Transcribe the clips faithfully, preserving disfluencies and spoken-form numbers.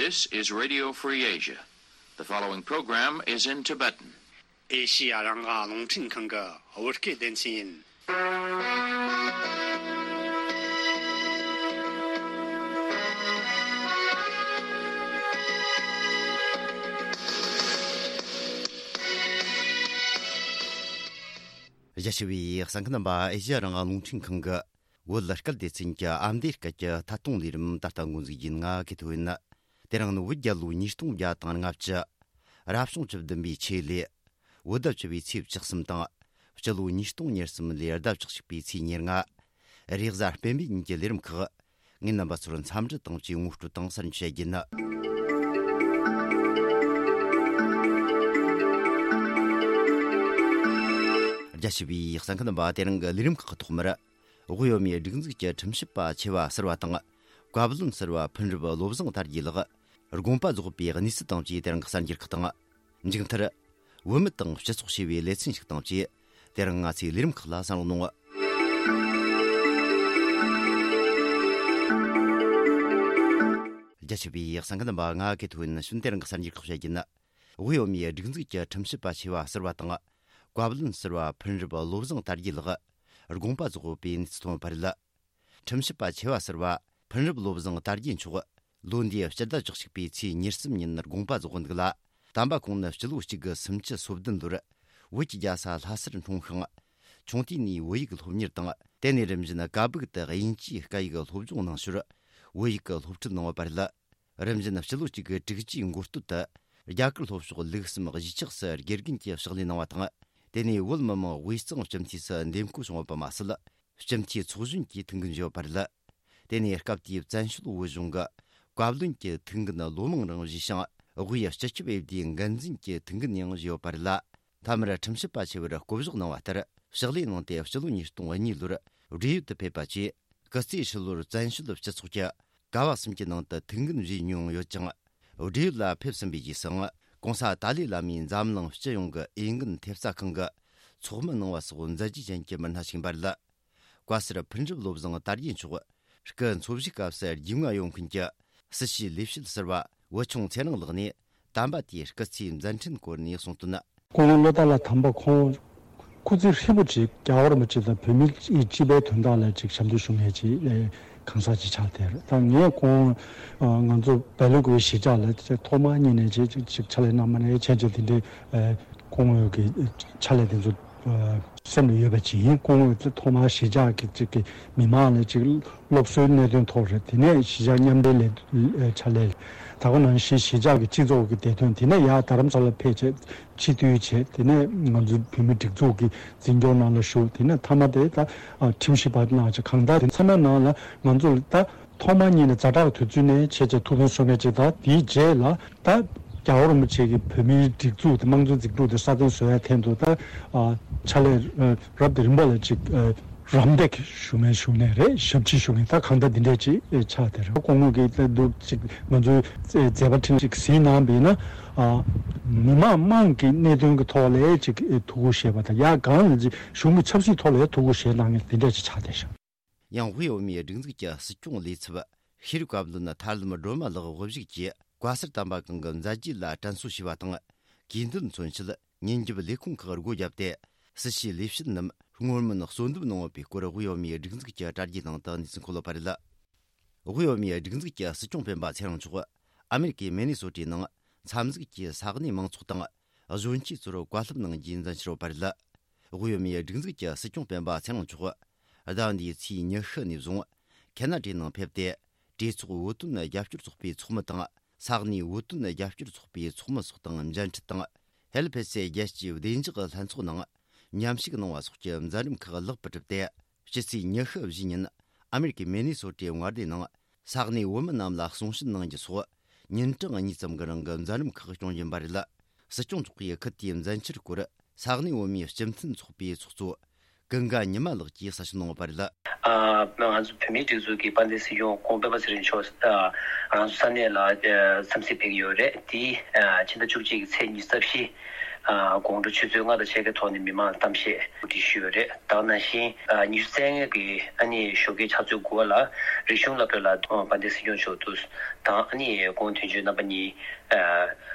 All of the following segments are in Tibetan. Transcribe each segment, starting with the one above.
This is Radio Free Asia. The following program is in Tibetan. ཨེ་ཤི་ཡ་རང་དབང་རླུང་འཕྲིན་ཁང་གི་བོད་སྐད་སྡེ་ཚན་ཡིན། རྒྱ་ཆེ་བའི་གསན་མཁན་རྣམ་པ། ཨེ་ཤི་ཡ་རང་དབང་རླུང་འཕྲིན་ཁང་གི་བོད་སྐད་སྡེ་ཚན་གྱི་ཨ་མདོའི་སྐད་ཀྱི་ཐད་གཏོང་ལས་རིམ་ད་ལྟ་འགོ་འཛུགས་ཡིན། ང་གི་ཐོ་ཡིན། དེ་རིང་ནི་བོད་རྒྱལ་ལོ་ཉིས་སྟོང་བརྒྱ་དང་ལྔ་བཅུ། རབ་བྱུང་བཅུ་བདུན་པའི་ཆེད་ལས། བོད་ཟླ་བཅུ་པའི་ཚེས་བཅུ་གསུམ་དང་། སྤྱི་ལོ་ཉིས་སྟོང་ཉེར་གསུམ་ལོའི་ཟླ་བཅུ་གཅིག་པའི་ཚེས་ཉེར་ལྔ། རེས་གཟའ་སྤེན་པའི་ཉིན་གྱི་ལས་རིམ་ཁག་ངས་རྣམ་པ་ཚོར་འཚམས་འདྲི་དང་བཅས་ངོ་སྤྲོད་དང་གསར་འགྱུར་བཤད་རྒྱུ་ཡིན། རྒྱ་ཆེ་བའི་གསན་མཁན་རྣམ་པ། དེ་རིང་གི་ལས་རིམ་ཁག་གི་ཐོག་མར། དབུས་བོད་མིའི་སྒྲིག་འཛུགས་ཀྱི་ཁྲིམས་ཞིབ་པ་ཆེ་བ་ཟུར་པ་དང་། བཀའ་བློན་ཟུར་པ་ཕུར་འགྲུབ་བློ་བཟང་དར་རྒྱས་ལགས་དགོངས་པ་རྫོགས་པའི་གནས་ཚུལ་དང་བཅས་དེ་རིང་གི་གསར་འགྱུར་ཁག་དང་། མཇུག་མཐར། བོད་མི་དང་སྤྱི་ཚོགས་ཞེས་པའི་ལེ་ཚན་ཞིག་དང་བཅས། དེ་རིང་ང་ཚོའི་ལས་རིམ་ཁག་ལ་གསན་རོགས་གནང་། རྒྱ་ཆེ་བའི་གསན་མཁན་རྣམ་པ། ང་གི་ཐོ་ཡིན། ཞུན། དེ་རིང་གི་གསར་འགྱུར་ཁག་བཤད་རྒྱུ་ཡིན། དབུས་བོད་མིའི་སྒྲིག་འཛུགས་ཀྱི་ཁྲིམས་ཞིབ་པ་ཆེ་བ་ཟུར་པ་དང་། བཀའ་བློན་ཟུར་པ་ཕུར་འགྲུབ་བློ་བཟང་དར་རྒྱས་ལགས་དགོངས་པ་རྫོགས་པའི་གནས་ཚུལ་ཐོན་པ་རེད། ཁྲིམས་ཞིབ་པ་ཆེ་བ་ཟུར་པ་ཕུར་འགྲུབ་བློ་བཟང་དར་རྒྱས་མཆོག་ལོ་འདིའི་སྤྱི་ཟླ་བཅུ་གཅིག་པའི་ཚེས་ཉེར་གསུམ་ཉིན་དགོངས་པ་རྫོགས་འདུག་ལ། དམ་པ་ཁོང་ནི་སྤྱི་ལོ་གཅིག་དགུ་སུམ་ཅུ་སོ་བདུན་ལོར་བོད་ཀྱི་རྒྱལ་ས་ལྷ་སར་འཁྲུངས་ཤིང་། ཆུང་དུས་ནས་བོད་ཡིག་སློབ་གཉེར་དང་། དེ་ནས་རིམ་བཞིན་ཀ་སྦུག་ཏུ་དབྱིན་ཇིའི་སྐད་ཡིག་སློབ་སྦྱོང་གནང་ཞོར་བོད་ཡིག་གི་སློབ་ཁྲིད་གནང་བ་རེད། རིམ་བཞིན་སྤྱི་ལོ་གཅིག་དགུ་དྲུག་ཅུའི་འགོ་སྟོད་དུ་རྒྱ་གར་ལྷོ་ཕྱོགས་ལུགས་གསུམ་གཞིས་ཆགས་སུ་དགེ་རྒན་གྱི་ཕྱག་ལས་གནང་བ་དང་། དེ་ནས་བོད་མི་མང་དབུས་གཙང་སྤྱི་འཐུས་སུ་འདེམས་བསྐོ་བྱུང་བ་པ་མ་ཟད། སྤྱི་འཐུས་ཚོགས་གཞོན་གྱི་ཐུགས་འགན་བཞེས་པ་རེད། དེ་ནས་སྐབས་དེའི་བཙན་བྱོལ་བོད་གཞུང་གི་བཀའ་བློན་གྱི་ཐུགས་འགན་བློ་མང་རང་བཞེས་ཤིང་། དབུས་སྤྱི་ཁྱབ་འོས་བསྡུའི་འགན་འཛིན་གྱི་ཐུགས་འགན་ཡང་བཞེས་ཡོད་པ་རེད་ལ། མཐའ་མར་ཁྲིམས་ཞིབ་པ་ཆེ་བར་བསྐོ་གཞག་གནང་བ་ལྟར་ཕྱག་ལས་གནང་སྟེ། སྤྱི་ལོ་ཉིས་སྟོང་གཉིས་ལོར་བགྲེས་ཡོལ་དུ་ཕེབས་པ་བཅས། སྐུ་ཚེ་ཧྲིལ་བོར་བཙན་བྱོལ་སྤྱི་ཚོགས་ཀྱི་ཀ་བ་གསུམ་གྱི་ནང་དུ་ཐུགས་འགན་བཞེས་མྱོང་ཡོད་ཅིང་། བགྲེས་ཡོལ་ལ་ཕེབས་ཟིན་པའི་རྗེས་སུའང་༸གོང་ས་ཏཱ་ལའི་བླ་མས་འཛམ་གླིང་སྤྱི་ཡོངས་ཀྱི་འོས་འགན་ཐེབས་རྩ་ཁང་གི་ཚོགས་མི་གནང་བ་སོགས་མཛད་རྗེས་ཅན་གྱི་མི་སྣ་ཞིག་ཡིན་པ་རེད། བཀའ་ཟུར་ཕུར་འགྲུབ་བློ་བཟང་དར་རྒྱས་མཆོག་སྐུ་འཚོ་བཞུགས་སྐབས་སུ་རྒྱུས་མངའ་ཡོད་མཁན་གྱི་སྲིད་བྱུས་ལས་བྱེད་ཟུར་པ་བུ་ཆུང་ཚེ་རིང་ལགས་ནས་དམ་པ་དེའི་སྐུ་ཚེའི་མཛད་འཕྲིན་སྐོར་ནས་གསུངས་དོན། སྐུ་ངོ་བློ་བདེ་ལགས་དམ་པ་ཁོང་སྐུ་ཚེ་ཧྲིལ་པོ་ཅིག་རྒྱལ་བ་རིན་པོ་ཆེ་དང་བོད་མིའི་སྤྱི་པའི་དོན་དག་ལ་ཅིག་ཞབས་འདེགས་ཞུ་མཁན་ཅིག་གང་ཟག་ཅིག་ཆགས་བསྡད་རེད། ད་ངས་ཁོང་ང་ཚོ་སྦེལ་ཀོབ་གཞིས་ཆགས་ལ་ཐོག་མར་གཉིས་ནས་ཅིག་ཅིག་ཕྱག་ལས་གནང་མ་ནས་ཆེད་ཆེད་དེ་འདྲའི་སྐུ་ངོ་གི་ཕྱག་ལས་དེ་ཚོ་སེམས་ལ་ཡོད་པ་ཅིག་ཡིན། སྐུ་ངོ་ཐོག་མར་གཞིས་ཆགས་ཀྱི་ཅིག་གི་མི་མང་ལ་ཅིག་སློབ་གསོའི་གནད་དོན་ཐོག་རེད། དེ་ནས་གཞིས་ཆགས་མཉམ་འབྲེལ་ལས་ཕྱག་ལས་ད་ག་ནང་བཞིན་གཞིས་ཆགས་ཀྱི་སྤྱི་ཚོགས་ཀྱི་བདེ་དོན། དེ་ནས་ཡར་རྡ་རམ་ས་ལ་ཕེབས་བྱས་སྤྱི་འཐུས་བྱས། དེ་ནས་ང་ཚོའི་བོད་མི་སྒྲིག་འཛུགས་ཀྱི་འཛིན་སྐྱོང་ནང་ལ་ཞུགས། དེ་ནས་མཐའ་མ་དེ་ད་ཁྲིམས་ཞིབ་པ་ནང་ཅིག་གང་ལྟར་དེ་ཚང་མའི་ནང་ལ་ང་ཚོ་ལ་ད་ཐོག་མ་ཉིད་ནས་ཛ་དྲག་དུས་ཚོད་ནས་ཆེད་ཆེད་ཐུགས་ཕན་གསོས་མཁན་ཅིག་དང་། དེའི་རྗེས་ལ་ད་རྒྱལ་བ་རིན་པོ་ཆེ་གི་བོད་མིའི་སྒྲིག་འཛུགས་དེ་དམངས་གཙོའི་འཛིན་གྲྭ་དེ་སྲ་བརྟན་བཟོ་ཡ་ཐད་དུ་ད་ཕྱག་ལས་རབ་དང་རིམ་པ་ལ་ཅིག་རམ་འདེགས་ཞུ་མཁན་ཞུ་མཁན་རེད། ཞབས་ཕྱི་ཞུ་མཁན་ད་གང་ལྟར་འདི་འདྲས་ཅིག་ཆགས་བསྡད་རེད། སྐུ་ངོ་གིས་ད་འདུག་ཅིག་ང་ཚོའི་མཛད་པ་ཁྲིམས་ཅིག་གཟིགས་གནང་བས་ན། མི་མང་དམངས་ཀྱི་གནད་དོན་གྱི་ཐོག་ལ་ཅིག་ཐུགས་ཁུར་བཞེས་པ་དང་། ཡང་གང་ལ་ཅིག་གཞུང་གི་ཆབ་སྲིད་ཐོག་ལ་ཐུགས་ཁུར་བཞེས་གནང་མཁན་འདི་འདྲས་ཅིག་ཆགས་བསྡད་ཤག་ཡང་དབུས་བོད་མིའི་སྒྲིག་འཛུགས་ཀྱི་སྲིད་སྐྱོང་ལས་ཚབ་ཤེས་རིག་བཀའ་བློན་ཐར་ལམ་སྒྲོལ་མ་ལགས་དབུ་བཞུགས་ཀྱིས་བཀའ་ཟུར་དམ་པ་གང་གི་མཛད་རྗེས་ལ་དྲན་གསོ་ཞུས་པ་དང་། གུས་འདུད་མཚོན་ཆེད་ཉིན་རྒྱབ་ལས་ཁུངས་ཁག་སྒོ་བརྒྱབ་སྟེ། སྲིད་བྱུས་ལས་བྱེད་རྣམས་སྔོན་མིན་གསོལ་འདེབས་གནང་ཡོད་པའི་སྐོར་དབུས་བོད་མིའི་སྒྲིག་འཛུགས་ཀྱི་དྲ་རྒྱའི་ནང་དུ་གནས་ཚུལ་འཁོད་ཡོད་པ་རེད། དབུས་བོད་མིའི་སྒྲིག་འཛུགས་ཀྱི་སྲིད་སྐྱོང་སྤེན་པ་ཚེ་རིང་མཆོག་ཨ་མེ་རི་ཀའི་མེ་ནི་སོ་ཊའི་ནང་མཚམས་འཛུགས་ཀྱི་ས་གནས་མང་ཚོགས་དང་གཞོན་སྐྱེས་ཚོར་བཀའ་སློབ་གནང་རྒྱུའི་མཛད་འཆར་ཡོད་པ་རེད། དབུས་བོད་མིའི་སྒྲིག་འཛུགས་ཀྱི་སྲིད་སྐྱོང་སྤེན་པ་ཚེ་རིང་མཆོག་ཟླ་འདིའི་ཚེས་ཉི་ཤུ་ནས་བཟུང་ཁེ་ན་ཌའི་ནང་ཕེབས་ཏེ། གྲོས་ཚོགས་བོད་དོན་རྒྱབ་སྐྱོར་ཚོགས་པའི་ཚོགས་མི་དང་། ས་གནས་བོད་དོན་རྒྱབ་སྐྱོར་ཚོགས་པའི་ཚོགས་མི་སོགས་དང་མཇལ་འཕྲད་དང་། ཧེལ་ཕེ་སེ་རྒྱལ་སྤྱིའི་བདེ་འཇགས་ལྷན་ཚོགས་ནང་མཉམ་ཞུགས་གནང་བ་སོགས་ཀྱི་མཛད་རིམ་ཁག་ལེགས་པར་གྲུབ་སྟེ། ཕྱི་ཚེས་ཉི་ཤུ་བཞི་ཉིན་ཨ་མེ་རི་ཀའི་མེ་ནི་སོ་ཊའི་མངའ་སྡེ་ནང་ས་གནས་བོད་མི་རྣམས་ལ་གསུང་བཤད་གནང་རྒྱུ་སོགས་ཉིན་གྲངས་གཉིས་ཙམ་གྱི་རིང་གི་མཛད་རིམ་ཁག་སྐྱོང་བཞིན་པ་རེད། སྲིད་སྐྱོང་མཆོག་གིས་ཁུལ་དེའི་མཛད་འཆར་སྐོར་ས་གནས་བོད་མིའི་སྤྱི་མཐུན་ཚོགས་པའི་ཚོགས་གཙོ་ཀུན་དགའ་ཉི་མ་ལགས་ཀྱིས་གསལ་བཤད་གནང་ཡོད་པ་རེད། ཨ་ང་ཚོ་བོད་མིའི་སྒྲིག་འཛུགས་ཀྱི་དཔལ་ལྡན་སྲིད་སྐྱོང་སྐུ་ངོ་སྤེན་པ་ཚེ་རིང་མཆོག་ཨ་ང་ཚོ་ས་གནས་ལ་ཨ་འཚམས་གཟིགས་ཕེབས་ཀྱི་ཡོད་རེད། དེ་ཨ་ཕྱི་ཟླ་བཅུ་གཅིག་གི་ཚེས་ཉི་ཤུ་རྩ་བཞི་ ཨ་དགོང་དྲོ་ཆུ་ཚོད་ལྔ་དང་ཕྱེད་ཀའི་ཐོག་ནས་མི་མང་ལ་གཏམ་བཤད་གོ་སྒྲིག་ཞུས་ཡོད་རེད། ད་ག་ནང་བཞིན་ཨ་ཉི་ཤུ་རྩ་ལྔ་གི་ཨ་ནི་ཞོགས་ཀའི་ཆུ་ཚོད་དགུ་པ་ལ་རིག་གཞུང་སློབ་གྲྭ་ལ་དཔལ་ལྡན་སྲིད་སྐྱོང་མཆོག་ཏུ་དང་ཨ་ནི་སྐུ་ངོ་དོན་གཅོད་རྣམ་པ་གཉིས་ཨ་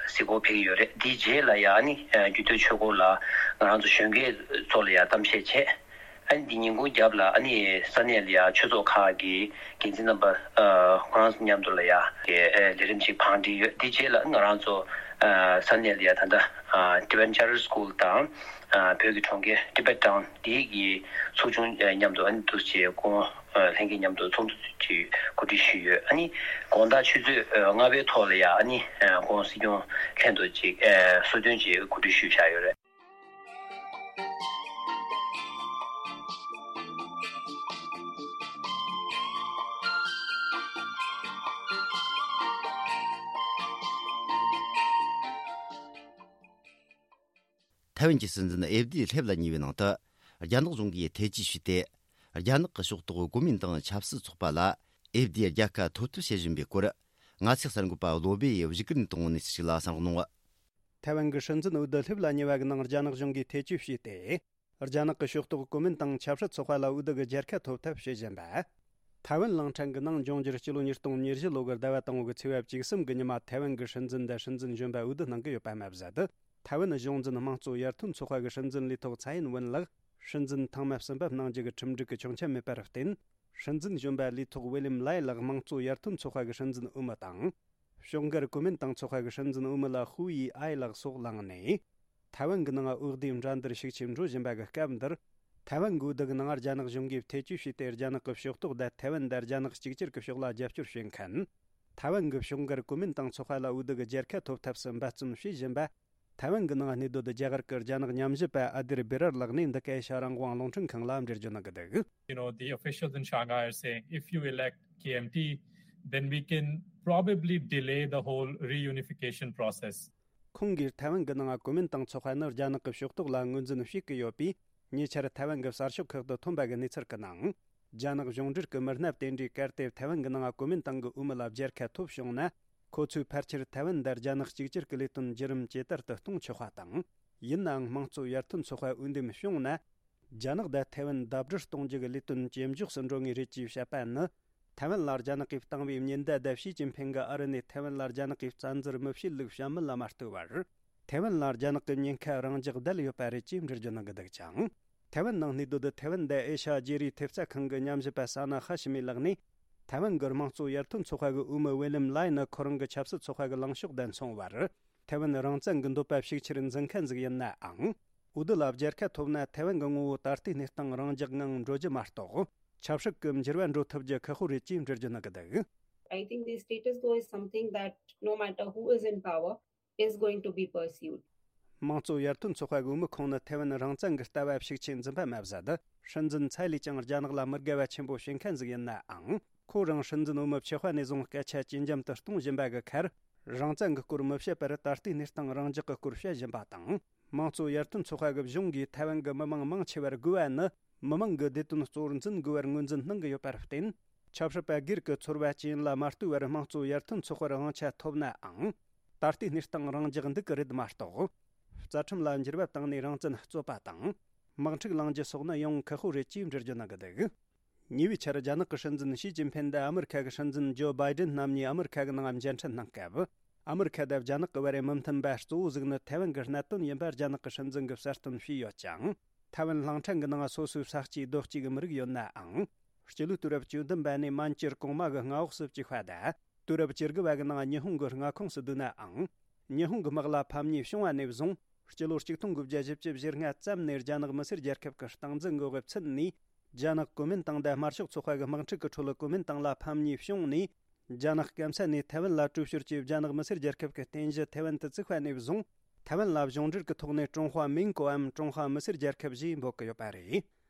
གཟིགས་སྐོར་ཕེབས་ཀྱི་ཡོད་རེད། དེའི་རྗེས་ལ་ཡང་ཨ་ནི་ཨ་རྒྱུད་སྟོད་ཆོས་འཁོར་ལ་ང་རང་ཚོ་གཞོན་སྐྱེས་ཚོ་ལ་ཡང་གཏམ་བཤད་བྱས། ཨ་ནི་འདི་ཉིན་གུང་རྒྱབ་ལ་ཨ་ནི་ས་གནས་ལ་ཡ་ཆོས་ཚོགས་ཁག་གི་འགན་འཛིན་རྣམ་པ་ཨ་ཁོ་རང་ཚོ་མཉམ་དུ་ལ་ཡ་གི་ཨ་ལས་རིམ་ཅིག་བང་སྒྲིག་ཡོད། འདི་རྗེས་ལ་ང་རང་ཚོ་ཨ་ས་གནས་ལ་ཡ་ད་ལྟ་ཨ་Tibetan Charter School དང་ཨ་བོད་ཀྱི་གྲོང་ཁྱེར་Tibet Town འདི་གི་ཚོགས་ཆུང་ཨ་མཉམ་དུ་ཨ་ནི་འདུ་བྱེད་སྐུ་ངོ་ཨ་ལྷན་རྒྱས་མཉམ་དུ་ཚོགས་འདུ་ཅིག་གོ་སྒྲིག་ཞུས་ཡོད། ཨ་ནི་དགོང་དག་ཆུ་ཚོད་ཨ་ལྔ་པའི་ཐོག་ལ་ཡ་ཨ་ནི་ཨ་སྐུ་ངོ་སྲིད་སྐྱོང་ལྷན་དུ་ཅིག་ཨ་གསོལ་སྟོན་ཅིག་གོ་སྒྲིག་ཞུས་བཞག་ཡོད་རེད། ཐའེ་ཝན་གྱི་སྲིད་འཛིན་ཨེབ་དི་སླེབ་ལ་གཉིས་པའི་ནང་དུ། རྒྱ་ནག་གཞུང་གིས་ཐེ་ཇུས་བྱས་ཏེ། རྒྱ་ནག་གི་ཕྱོགས་གཏོགས་གོ་མིན་ཏང་ཆབ་སྲིད་ཚོགས་པ་ལ་ཨེབ་དི་རྒྱལ་ཁ་ཐོབ་ཐབས་བྱེད་བཞིན་པའི་སྐོར། ང་ཚོའི་གསར་འགོད་པ་བློ་བྷེ་ཡིས་བཞུགས་སྒར་ནས་བཏང་བ་ནས་ཞིག་ལ་གསན་གནང་། ཐའེ་ཝན་གྱི་སྲིད་འཛིན་འོས་བསྡུ་སླེབས་ལ་ཉེ་བ་གི་ནང་རྒྱ་ནག་གཞུང་གིས་ཐེ་ཇུས་བྱས་ཏེ། རྒྱ་ནག་གི་ཕྱོགས་གཏོགས་གོ་མིན་ཏང་ཆབ་སྲིད་ཚོགས་པ་ལ་འོས་བསྡུ་གི་རྒྱལ་ཁ་ཐོབ་ཐབས་བྱེད་བཞིན་པ། ཐའེ་ཝན་གླིང་ཕྲན་གྱི་ནང་འབྱུང་འགྱུར་སྤྱི་ལོ་ཉིས་སྟོང་ཉེར་བཞི་ལོ་གི་ཟླ་བ་དང་པོ་གི་ཚེས་པ་བཅུ་གསུམ་གྱི་ཉི་མ་ཐའེ་ཝན་གྱི་སྲིད་འཛིན་དང་སྲིད་འཛིན་གཞོན་པ་འོས་བསྡུ་གནང་གི་ཡོད་པ་མ་ཟད། ཐའེ་ཝན་གཞུང་འཛིན་དམངས་གཙོ་ཡར་ཐོན་ཚོགས་པ་གི་སྲིད་འཛིན་ལས་ཐོག་ཚའེ་ཡིན་ཝུན་ལགས་སྲིད་འཛིན་ཐེངས་མ་གསུམ་པ་གནང་རྒྱུ་གི་ཁྲིམས་སྒྲིག་གི་ཆོག་མཆན་མེད་པར་བརྟེན། སྲིད་འཛིན་གཞོན་པ་ལས་ཐོག་ཝི་ལིམ་ལའེ་ལགས་དམངས་གཙོ་ཡར་ཐོན་ཚོགས་པ་གི་སྲིད་འཛིན་འོས་མི་དང་། ཕྱོགས་འགལ་གོ་མིན་ཏང་ཚོགས་པ་གི་སྲིད་འཛིན་འོས་མི་ལ་ཧུའུ་ཡི་ཨའེ་ལགས་སོགས་ལངས་ནས། ཐའེ་ཝན་གྱི་ནང་འོས་བསྡུའི་འགྲན་བསྡུར་ཤུགས་ཆེ་འགྲོ་བཞིན་པ་གི་སྐབས་འདིར། ཐའེ་ཝན་གྱི་འོས་བསྡུ་གི་ནང་རྒྱ་ནག་གཞུང་གིས་ཐེ་ཇུས་བྱས་ཏེ། རྒྱ་ནག་གི་ཕྱོགས་གཏོགས་དང་ཐའེ་ཝན་དང་རྒྱ་ནག་གཅིག་གྱུར་གྱི་ཕྱོགས་ལ་རྒྱབ་སྐྱོར་བྱེད་མཁན། ཐའེ་ཝན་གྱི་ཕྱོགས་འགལ་གོ་མིན་ཏང་ཚོགས་པ་ལ་འོས་བསྡུ་གི་རྒྱལ་ཁ་ཐོབ་ཐབས་སུ་འབད་བརྩོན་བྱེད་བཞིན་པ། ཐའེ་ཝན་གྱི་ནང་གནས་སྡོད་རྒྱ་གར་གྱི་རྒྱ་ནག་ཉམས་ཞིབ་པ་ཨ་དིར་བི་རར་ལགས་ནས་འདི་ག་ཨེ་ཤ་རང་དབང་རླུང་འཕྲིན་ཁང་ལ་འགྲེལ་བརྗོད་གནང་གི་འདུག You know, the officials in Shanghai are saying if you elect K M T, then we can probably delay the whole reunification process. ཁོང་གིས་ཐའེ་ཝན་གྱི་ནང་གོ་མིན་ཏང་ཚོགས་པ་ནི་རྒྱ་ནག་གི་ཕྱོགས་གཏོགས་ལ་ངོས་འཛིན་བྱེད་ཀྱི་ཡོད་པས། ཉེ་ཆར་ཐའེ་ཝན་གྱི་གསར་ཤོག་ཁག་ཏུ་ཐོན་པ་གི་གནས་ཚུལ་གྱི་ནང་། རྒྱ་ནག་གཞུང་འབྲེལ་གྱི་མི་སྣ་དེ་འདྲས་གལ་ཏེ་ཐའེ་ཝན་གྱི་ནང་གོ་མིན་ཏང་གི་འོས་མི་ལ་རྒྱལ་ཁ་ཐོབ་བྱུང་ན། ཁོ་ཚོས་ཕལ་ཆེར་ཐའེ་ཝན་དང་རྒྱ་ནག་གཅིག་གྱུར་གྱི་ལས་དོན་བརྒྱུད་རིམ་ཇེ་དར་དུ་གཏོང་ཆོག་པ་དང་། ཡིན་ནའང་དམངས་གཙོ་ཡར་ཐོན་ཚོགས་པ་འོས་འདེམས་བྱུང་ན། རྒྱ་ནག་དང་ཐའེ་ཝན་ཟླ་སྒྲིལ་གཏོང་རྒྱུ་གི་ལས་དོན་ཇེ་མགྱོགས་སུ་འགྲོ་ངེས་རེད་ཅེས་བཤད་པ་ནི། ཐའེ་ཝན་ལ་རྒྱ་ནག་གིས་བཏང་བའི་ཉེན་བརྡ་དང་ཞི་ཅིན་ཕིང་གིས་ཨ་རི་ནས་ཐའེ་ཝན་ལ་རྒྱ་ནག་གིས་བཙན་འཛུལ་མི་བྱེད་ལུགས་བཤད་མིན་ལ་མ་ལྟོས་པར། ཐའེ་ཝན་ལ་རྒྱ་ནག་གི་ཉེན་ཁ་རང་འཇགས་བསྡད་ཡོད་པ་རེད་ཅེས་འགྲེལ་བརྗོད་གནང་གི་འདུག་ཅིང་། ཐའེ་ཝན་ནང་གནས་སྡོད་ཐའེ་ཝན་དང་ཨེ་ཤ་ཡ་བརྗེ་རེས་ཐེབས་རྩ་ཁང་གི་ཉམས་ཞིབ་པ་ས་ན་ཧ་ཤི་མི་ལགས་ནས། ཐའེ་ཝན་གྱི་དམངས་གཙོ་ཡར་ཐོན་ཚོགས་པ་གི་འོས་མི་ཝེ་ལིམ་ལའེ་ནི་ཁོ་རང་གི་ཆབ་སྲིད་ཚོགས་པ་གི་ལངས་ཕྱོགས་དང་མཚུངས་པར། ཐའེ་ཝན་རང་བཙན་གྱི་འདོད་པ་ཤུགས་ཆེར་འཛིན་མཁན་ཟིག་ཡིན་ནའང་། འོས་བསྡུ་ལ་རྒྱལ་ཁ་ཐོབ་ན་ཐའེ་ཝན་གྱི་ངོ་བོ་ད་ལྟའི་གནས་སྟངས་རང་འཇགས་ངང་འགྲོ་རྒྱུ་མ་གཏོགས། ཆབ་སྲིད་ཀྱི་འགྱུར་བ་འགྲོ་ཐུབ་རྒྱུ་ཁག་པོ་རེད་ཅེས་འགྲེལ་བརྗོད་གནང་གི་འདུག I think the status quo is something that no matter who is in power is going to be pursued. དམངས་གཙོ་ཡར་ཐོན་ཚོགས་པ་གི་འོས་མི་ཁོང་ནི་ཐའེ་ཝན་རང་བཙན་གྱི་ལྟ་བ་ཤུགས་ཆེ་འཛིན་པ་མ་ཟད། སྲིད་འཛིན་ཚའེ་ལི་ཅང་རྒྱ་ནག་ལ་མི་དགའ་བ་ཆེན་པོ་བྱེད་མཁན་ཟིག་ཡིན་ནའང་། ཁོ་རང་སྲིད་འཛིན་འོས་མི་ཆགས་པ་ནས་བཟུང་སྐད་ཆ་ཇེ་འཇམ་དུ་གཏོང་བཞིན་པ་གི་ཁར། རང་བཙན་གྱི་སྐོར་མི་བཤད་པར་ད་ལྟའི་གནས་སྟངས་རང་འཇགས་ཀྱི་སྐོར་བཤད་བཞིན་པ་དང་། དམངས་གཙོ་ཡར་ཐོན་ཚོགས་པ་གི་གཞུང་གིས་ཐའེ་ཝན་གྱི་མི་མང་མང་ཆེ་བར་དགོས་པ་ནི། མི་མང་གི་བདེ་དོན་གཙོ་བོར་འཛིན་དགོས་པར་ངོས་འཛིན་གནང་གི་ཡོད་པར་བརྟེན། ཆབ་སྲིད་པ་སྒེར་གྱི་ཚོར་བ་ཅི་ཡིན་ལ་མ་ལྟོས་པར་དམངས་གཙོ་ཡར་ཐོན་ཚོགས་པར་དབང་ཆ་ཐོབ་ནའང་། ད་ལྟའི་གནས་སྟངས་རང་འཇགས་འདུག་གི་རེད་མ་གཏོགས། རྩ་ཁྲིམས་ལ་འགྱུར་བ་བཏང་ནས་རང་བཙན་རྩོད་པ་དང་། དམག་འཁྲུག་ལངས་རྒྱུ་སོགས་ནི་ཡང་ཁག་པོ་རེད་ཅེས་འགྲེལ་བརྗོད་གནང་གི་འདུག་ཉེ་བའི་ཆར་རྒྱ་ནག་གི་སྲིད་འཛིན་ཞི་ཅིན་ཕིན་དང་ཨ་མི་རི་ཁ་གི་སྲིད་འཛིན་ཇོ་བྷའི་ཌེན་རྣམ་གཉིས་ཨ་མི་རི་ཁ་གི་ནང་མཇལ་འཕྲད་གནང་སྐབས། ཨ་མི་རི་ཁ་དང་རྒྱ་ནག་གི་བར་མི་མཐུན་པ་གཙོ་བོ་ཟིག་ནི་ཐའེ་ཝན་གྱི་གནད་དོན་ཡིན་པ་རྒྱ་ནག་གི་སྲིད་འཛིན་གྱིས་གསལ་སྟོན་བྱས་ཡོད་ཅིང་། ཐའེ་ཝན་གླིང་ཕྲན་གྱི་ནང་སོ་སོའི་ས་སྐྱེས་རྡོ་སྐྱེས་ཀྱི་མི་རིགས་ཡོད་ནའང་། སྤྱི་ལོའི་དུས་རབས་བཅུ་བདུན་པ་ནས་མན་ཇུར་གོང་མ་གི་མངའ་འོག་སུ་བཅུག་པ་དང་། དུས་རབས་བཅུ་དགུ་པ་གི་ནང་ཉི་ཧོང་གི་མངའ་ཁོངས་སུ་བསྡུས་ནའང་། ཉི་ཧོང་གི་དམག་ལ་ཕམ་ཉེས་བྱུང་བ་ནས་བཟུང་། སྤྱི་ལོ་ཆིག་སྟོང་དགུ་བརྒྱ་བཞི་བཅུ་ཞེ་ལྔ་ཙམ་ནས་རྒྱ་ནག་མི་སེར་རྒྱལ་ཁབ་ཀྱི་སྟངས་འཛིན་འགོག་པའི་ཚུལ་ནས། རྒྱ་ནག་གོ་མིན་ཏང་དང་དམར་ཤོག་ཚོགས་པ་གི་དམག་འཁྲུག་གི་ཁྲོད་གོ་མིན་ཏང་ལ་ཕམ་ཉེས་བྱུང་ནས། རྒྱ་ནག་སྐམ་ས་ནས་ཐའེ་ཝན་ལ་དྲོད་ཤོར་གྱིས་རྒྱ་ནག་མི་སེར་རྒྱལ་ཁབ་ཀྱི་རྟེན་གཞི་ཐའེ་ཝན་དུ་བཙུགས་པ་ནས་བཟུང་། ཐའེ་ཝན་ལ་གཞུང་འབྲེལ་གྱི་ཐོག་ནས་ཀྲུང་ཧྭ་མིང་གོའམ་ཀྲུང་ཧྭ་མི་སེར་རྒྱལ་ཁབ་ཞེས་འབོད་ཀྱི་ཡོད་པ་རེད།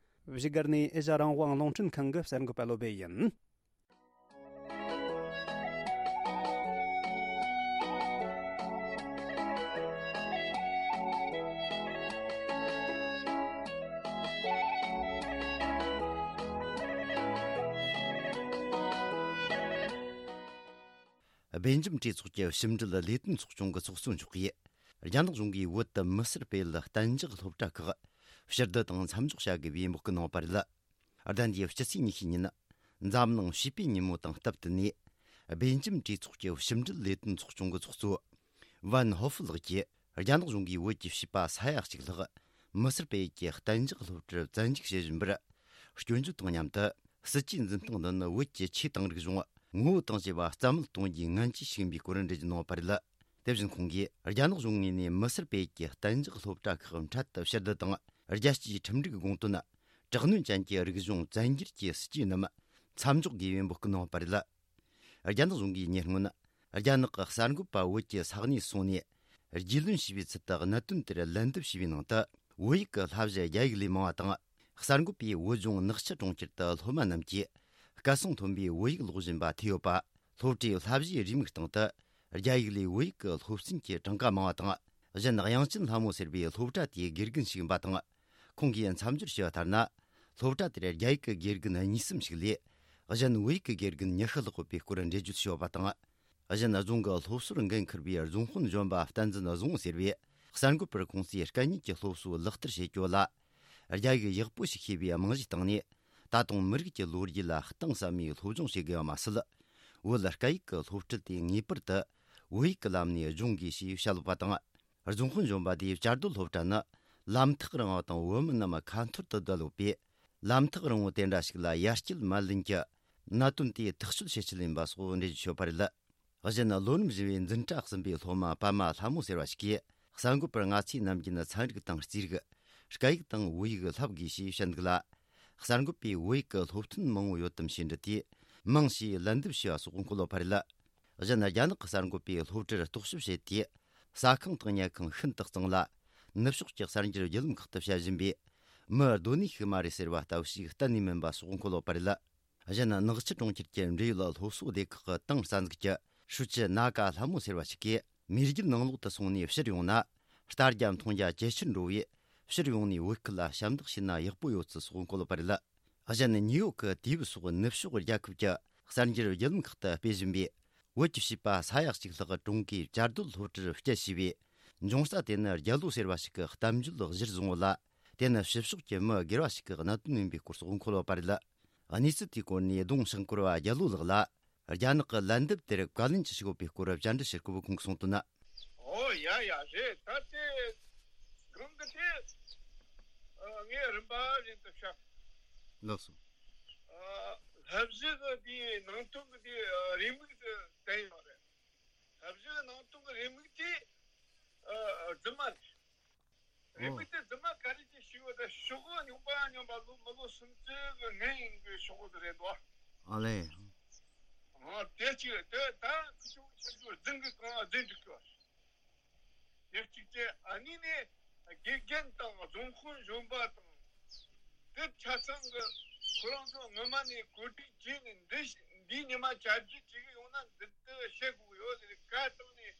བཞུགས་སྒར་ནས་ཨེ་ཤ་རང་དབང་རླུང་འཕྲིན་ཁང་གི་གསར་འགོད་པ་བློ་བྷེ་ཡིན། སྦེལ་ཇམ་གྲོས་ཚོགས་ཀྱི་ཕྱི་འབྲེལ་ལས་དོན་ཚོགས་ཆུང་གི་ཚོགས་གཙོ་མཆོག་གིས། རྒྱ་ནག་གཞུང་གིས་བོད་དུ་མི་སེར་སྤེལ་གཏན་འཇགས་སློབ་གྲྭ་ཁག་ཕྱིར་བསྡུ་དང་མཚམས་འཇོག་བྱ་དགོས་པའི་འབོད་སྐུལ་གནང་བ་རེད། ཟླ་འདིའི་སྤྱི་ཚེས་ཉི་ཤུ་ཉིན། འཛམ་གླིང་བྱིས་པའི་ཉིན་མོ་དང་སྟབས་བསྟུན་ནས། སྦེལ་ཇམ་གྲོས་ཚོགས་ཀྱི་ཕྱི་འབྲེལ་ལས་དོན་ཚོགས་ཆུང་གི་ཚོགས་གཙོ་ཝན་ཧོ་ཧྥུ་ལགས་ཀྱིས། རྒྱ་ནག་གཞུང་གིས་བོད་ཀྱི་བྱིས་པ་ས་ཡ་གཅིག་ལྷག་མི་སེར་སྤེལ་ཡུལ་གྱི་གཏན་འཇགས་སློབ་གྲྭར་བཙན་འཇུག་བྱེད་བཞིན་པར། སྐྱོན་བརྗོད་དང་མཉམ་དུ། སྲིད་ཇུས་འཛིན་སྟངས་འདི་ནི་བོད་ཀྱི་ཆོས་དང་རིག་གཞུང་ངོ་བོ་དང་བཅས་པ་རྩ་མེད་གཏོང་རྒྱུའི་ངན་ཇུས་ཤིག་ཡིན་པའི་སྐོར་འགྲེལ་བརྗོད་གནང་བ་རེད། དེ་བཞིན་ཁོང་གིས། རྒྱ་ནག་གཞུང་ངོས་ནས་མི་སེར་སྤེལ་ཡུལ་གྱི་གཏན་འཇགས་སློབ་གྲྭ་ཁག་འཕྲལ་དུ་ཕྱིར་བསྡུ་དང་། རྒྱལ་སྤྱིའི་ཁྲིམས་འགྲིག་དགོངས་དོན། དྲག་གནོན་ཅན་གྱི་རིག་གཞུང་བཙན་སྒྱུར་གྱི་སྲིད་ཇུས་རྣམས་མཚམས་འཇོག་དགོས་པའི་འབོད་སྐུལ་གནང་བ་རེད། རྒྱ་ནག་གཞུང་གིས་ཉེ་སྔོན། རྒྱ་ནག་གི་གསར་འགོད་པ་བོད་ཀྱི་ས་གནས་སོང་ནས། རྒྱུས་ལོན་བྱས་པའི་ཚུལ་དུ་གནད་དོན་དེར་ལན་འདེབས་བྱས་པའི་ནང་དུ། བོད་ཡིག་གི་བསླབ་གཞི་རྒྱ་ཡིག་ལས་མང་བ་དང་། གསར་འགོད་པས་བོད་ལྗོངས་ནག་ཆུ་གྲོང་ཁྱེར་དུ་སློབ་མ་རྣམས་ཀྱིས་སྐད་གསང་མཐོན་པོས་བོད་ཡིག་ཀློག་བཞིན་པ་ཐོས་ཡོད་པ། སློབ་གྲྭའི་བསླབ་གཞིའི་རེའུ་མིག་སྟེང་དུ། རྒྱ་ཡིག་ལས་བོད་ཡིག་གི་སློབ་ཚན་གྱི་གྲངས་ཀ་མང་བ་དང་། གཞན་དབྱངས་ཅན་ལྷ་མོ་ཟེར་བའི་སློབ་གྲྭ་དེའི་དགེ་རྒན་ཞིག་ཡིན་པ་དང་། ཁོང་གིས་མཚམས་སྦྱོར་བྱས་པ་ལྟར་ན། སློབ་གྲྭ་དེར་རྒྱ་ཡིག་གི་དགེ་རྒན་གཉིས་གསུམ་ཞིག་ལས། གཞན་བོད་ཡིག་གི་དགེ་རྒན་ཉི་ཤུ་ལྷག་ཡོད་པའི་སྐོར་འགྲེལ་བརྗོད་བྱས་ཡོད་པ་དང་། གཞན། རྫོང་གི་སློབ་གསོར་འགན་འཁུར་བའི་རྫོང་དཔོན་གཞོན་པ་བསྟན་འཛིན་བཟང་བོ་ཟེར་བས། གསར་འགོད་པར་ཁོང་ཚོས་སྐད་གཉིས་ཀྱི་སློབ་གསོ་ལག་བསྟར་བྱེད་རྒྱུ་ལ། རྒྱ་ཡིག་ཡག་པོ་ཞིག་ཤེས་པའི་རྨང་གཞིའི་སྟེང་ནས། ད་དུང་མི་རིགས་ཀྱི་ལོ་རྒྱུས་ལ་གཏིང་ཟབ་མོའི་སློབ་སྦྱོང་བྱེད་དགོས་པ་མ་ཟད། བོད་སྐད་ཡིག་གི་སློབ་ཁྲིད་དེ་ངེས་པར་དུ་བོད་ཡིག་གི་ལམ་ནས་སྦྱོང་དགོས་ཞེས་བཤད་ཡོད་པ་དང་། རྫོང་དཔོན་གཞོན་པ་དེས་བཅའ་སྡོད་སློབ་གྲྭ་ནི་ལམ་ཐག་རིང་བ་དང་བོད་མི་རྣམས་ཁ་འཐོར་དུ་བསྡད་ཡོད་པས། ལམ་ཐག་རིང་བོ་དེ་འདྲ་ཞིག་ལ་ཡར་སྐྱེལ་མ་ལེན་གྱི་གནད་དོན་དེ་ཐག་གཅོད་བྱེད་ཆེད་ཡིན་པ་སོགས་འགྲེལ་བརྗོད་བྱས་ཡོད་པ་རེད། གཞན། ལོ་རིམ་བཞི་པའི་འཛིན་གྲྭ་གསུམ་པའི་སློབ་མ་པད་མ་ལྷ་མོ་ཟེར་བ་ཞིག་གིས། གསར་འགོད་པར་ང་ཚོས་ནམ་རྒྱུན་ཚན་རིག་དང་རྩིས་རིག་སྐད་ཡིག་དང་བོད་ཡིག་བསླབ་དགོས་ཞེས་བཤད་འདུག་ལ། གསར་འགོད་པས་བོད་ཡིག་གི་སློབ་ཐུན་མང་བོ་ཡོད་དམ་ཞེས་འདྲི་དུས། མང་ཞེས་ལན་འདེབས་བྱས་པ་སོགས་འཁོད་ཡོད་པ་རེད། གཞན། རྒྱ་ནག་གི་གསར་འགོད་པས་སློབ་གྲྭར་རྟོག་ཞིབ་བྱས་ཏེ། ཟ་ཁང་དང་ཉལ་ཁང་ཤིན་ཏུ་གཙང་ལ། ནུབ་ཕྱོགས་ཀྱི་གསར་འགྱུར་བརྒྱུད་ལམ་ཁག་ཏུ་བཤད་བཞིན་པའི་མི་སྡོད་གནས་ཤིག་མ་རེད་ཟེར་བ་ལྟ་བུ་ཞིག་གཏན་ནས་མིན་པ་སོགས་འཁོད་ཡོད་པ་རེད། གཞན། ནག་ཆུ་གྲོང་ཁྱེར་གྱི་འབྲེལ་ཡོད་སློབ་གསོ་སྡེ་ཁག་གི་ཏང་རྩ་འཛུགས་ཀྱི་ཧྲུའུ་ཅི་ན་ཀ་ལྷ་མོ་ཟེར་བ་ཞིག་གིས། མེས་རྒྱལ་ནང་ལོགས་དུ་སོང་ནས་ཕྱིར་ཡོང་ན། ལྟ་རྒྱ་མཐོང་རྒྱ་ཇེ་ཆེར་འགྲོ་བས། ཕྱིར་ཡོང་ནས་བོད་ཁུལ་ལ་ཞབས་འདེགས་ཞུས་ན་ཡག་པོ་ཡོད་ཚུལ་སོགས་འཁོད་ཡོད་པ་རེད། གཞན། ནིའུ་ཡོག་གི་དུས་བབ་སོགས་ནུབ་ཕྱོགས་རྒྱལ་ཁབ་ཀྱི་གསར་འགྱུར་བརྒྱུད་ལམ་ཁག་ཏུ་སྤེལ་བཞིན་པའི། བོད་ཀྱི་བྱིས་པ་ས་ཡ་གཅིག་ལྷག་ཀྲུང་གོའི་བཅའ་སྡོད་སློབ་གྲྭར་བསྐྱལ་ཞེས་པའི་འབྱུང་རྩ་དེ་ནི་རྒྱལ་ལོ་ཟེར་བ་ཞིག་གི་གཏམ་བརྗོད་གཞིར་བཟུང་བ་ལ། དེ་ནི་ཕྱི་ཕྱོགས་ཀྱི་མི་སྒེར་བ་ཞིག་གི་གནད་དོན་ཡིན་པའི་སྐོར་སོགས་འཁོད་ཡོད་པ་རེད། གནས་ཚུལ་དེའི་སྐོར་ནས་ལྡོང་ཤང་སྐོར་བ་རྒྱལ་ལོ་ལགས་ལ། རྒྱ་ནག་གི་ལན་འདེབས་དེར་བཀའ་ལན་ཅི་ཞིག་ཡོད་པའི་སྐོར་བཅར་འདྲི་ཞུ་སྐབས་ཁོང་གིས་གསུངས་དོན། ཨོ་ཡ་ཡ་རེད། ད་དེ་གང་གི་དེ་ངས་རིམ་པ་བཞིན་དུ་བཤད། ལགས་སོ། བསླབ་གཞི་གི་དེའི་ནང་དོན་གི་དེའི་རེའུ་མིག་དེ་བསྟན་ཡོད་རེད། བསླབ་གཞི་གི་ནང་དོན་གི་རེའུ་མིག་དེ་རྫུན་མ་རེད། རེད། ཨོ། མི་དེ་རྫུན་མ་ག་རེ་ཅིག་ཞིག་ཡོད་ད་ཤོག་གུ་རྙོག་པ་རྙོག་པ་ལོ་མི་ལོ་སུམ་ཅུ་གི་སྔོན་ཡིན་དགོས་ཤོག་གུ་དེ་རེད་དོ། ཨ་ལས། ཨ་དེ་ཅིག་རེད། དེ་ད་ཁུ་ཆུང་ཆུང་ཆུང་རྫུན་གི་གང་རྫུན་འགྲིག་གི་བ། དེ་གཅིག་བྱས། ཨ་ནི་ནས་དགེ་རྒན་དང་རྫོང་དཔོན་གཞོན་པ་དང་། དེ་ཆ་ཚང་གི་ཁོ་རང་ཚོ་སྔོན་མ་ནས་གོ་སྒྲིག་བྱས་ནས་འདི་འདིའི་ཉི་མ་བཅར་འདྲི་བྱེད་གི་ཡོང་ན་འདི་འདི་བཤད་དགོས་ཡོད་ཟེར་བཀའ་བཏང་ནས།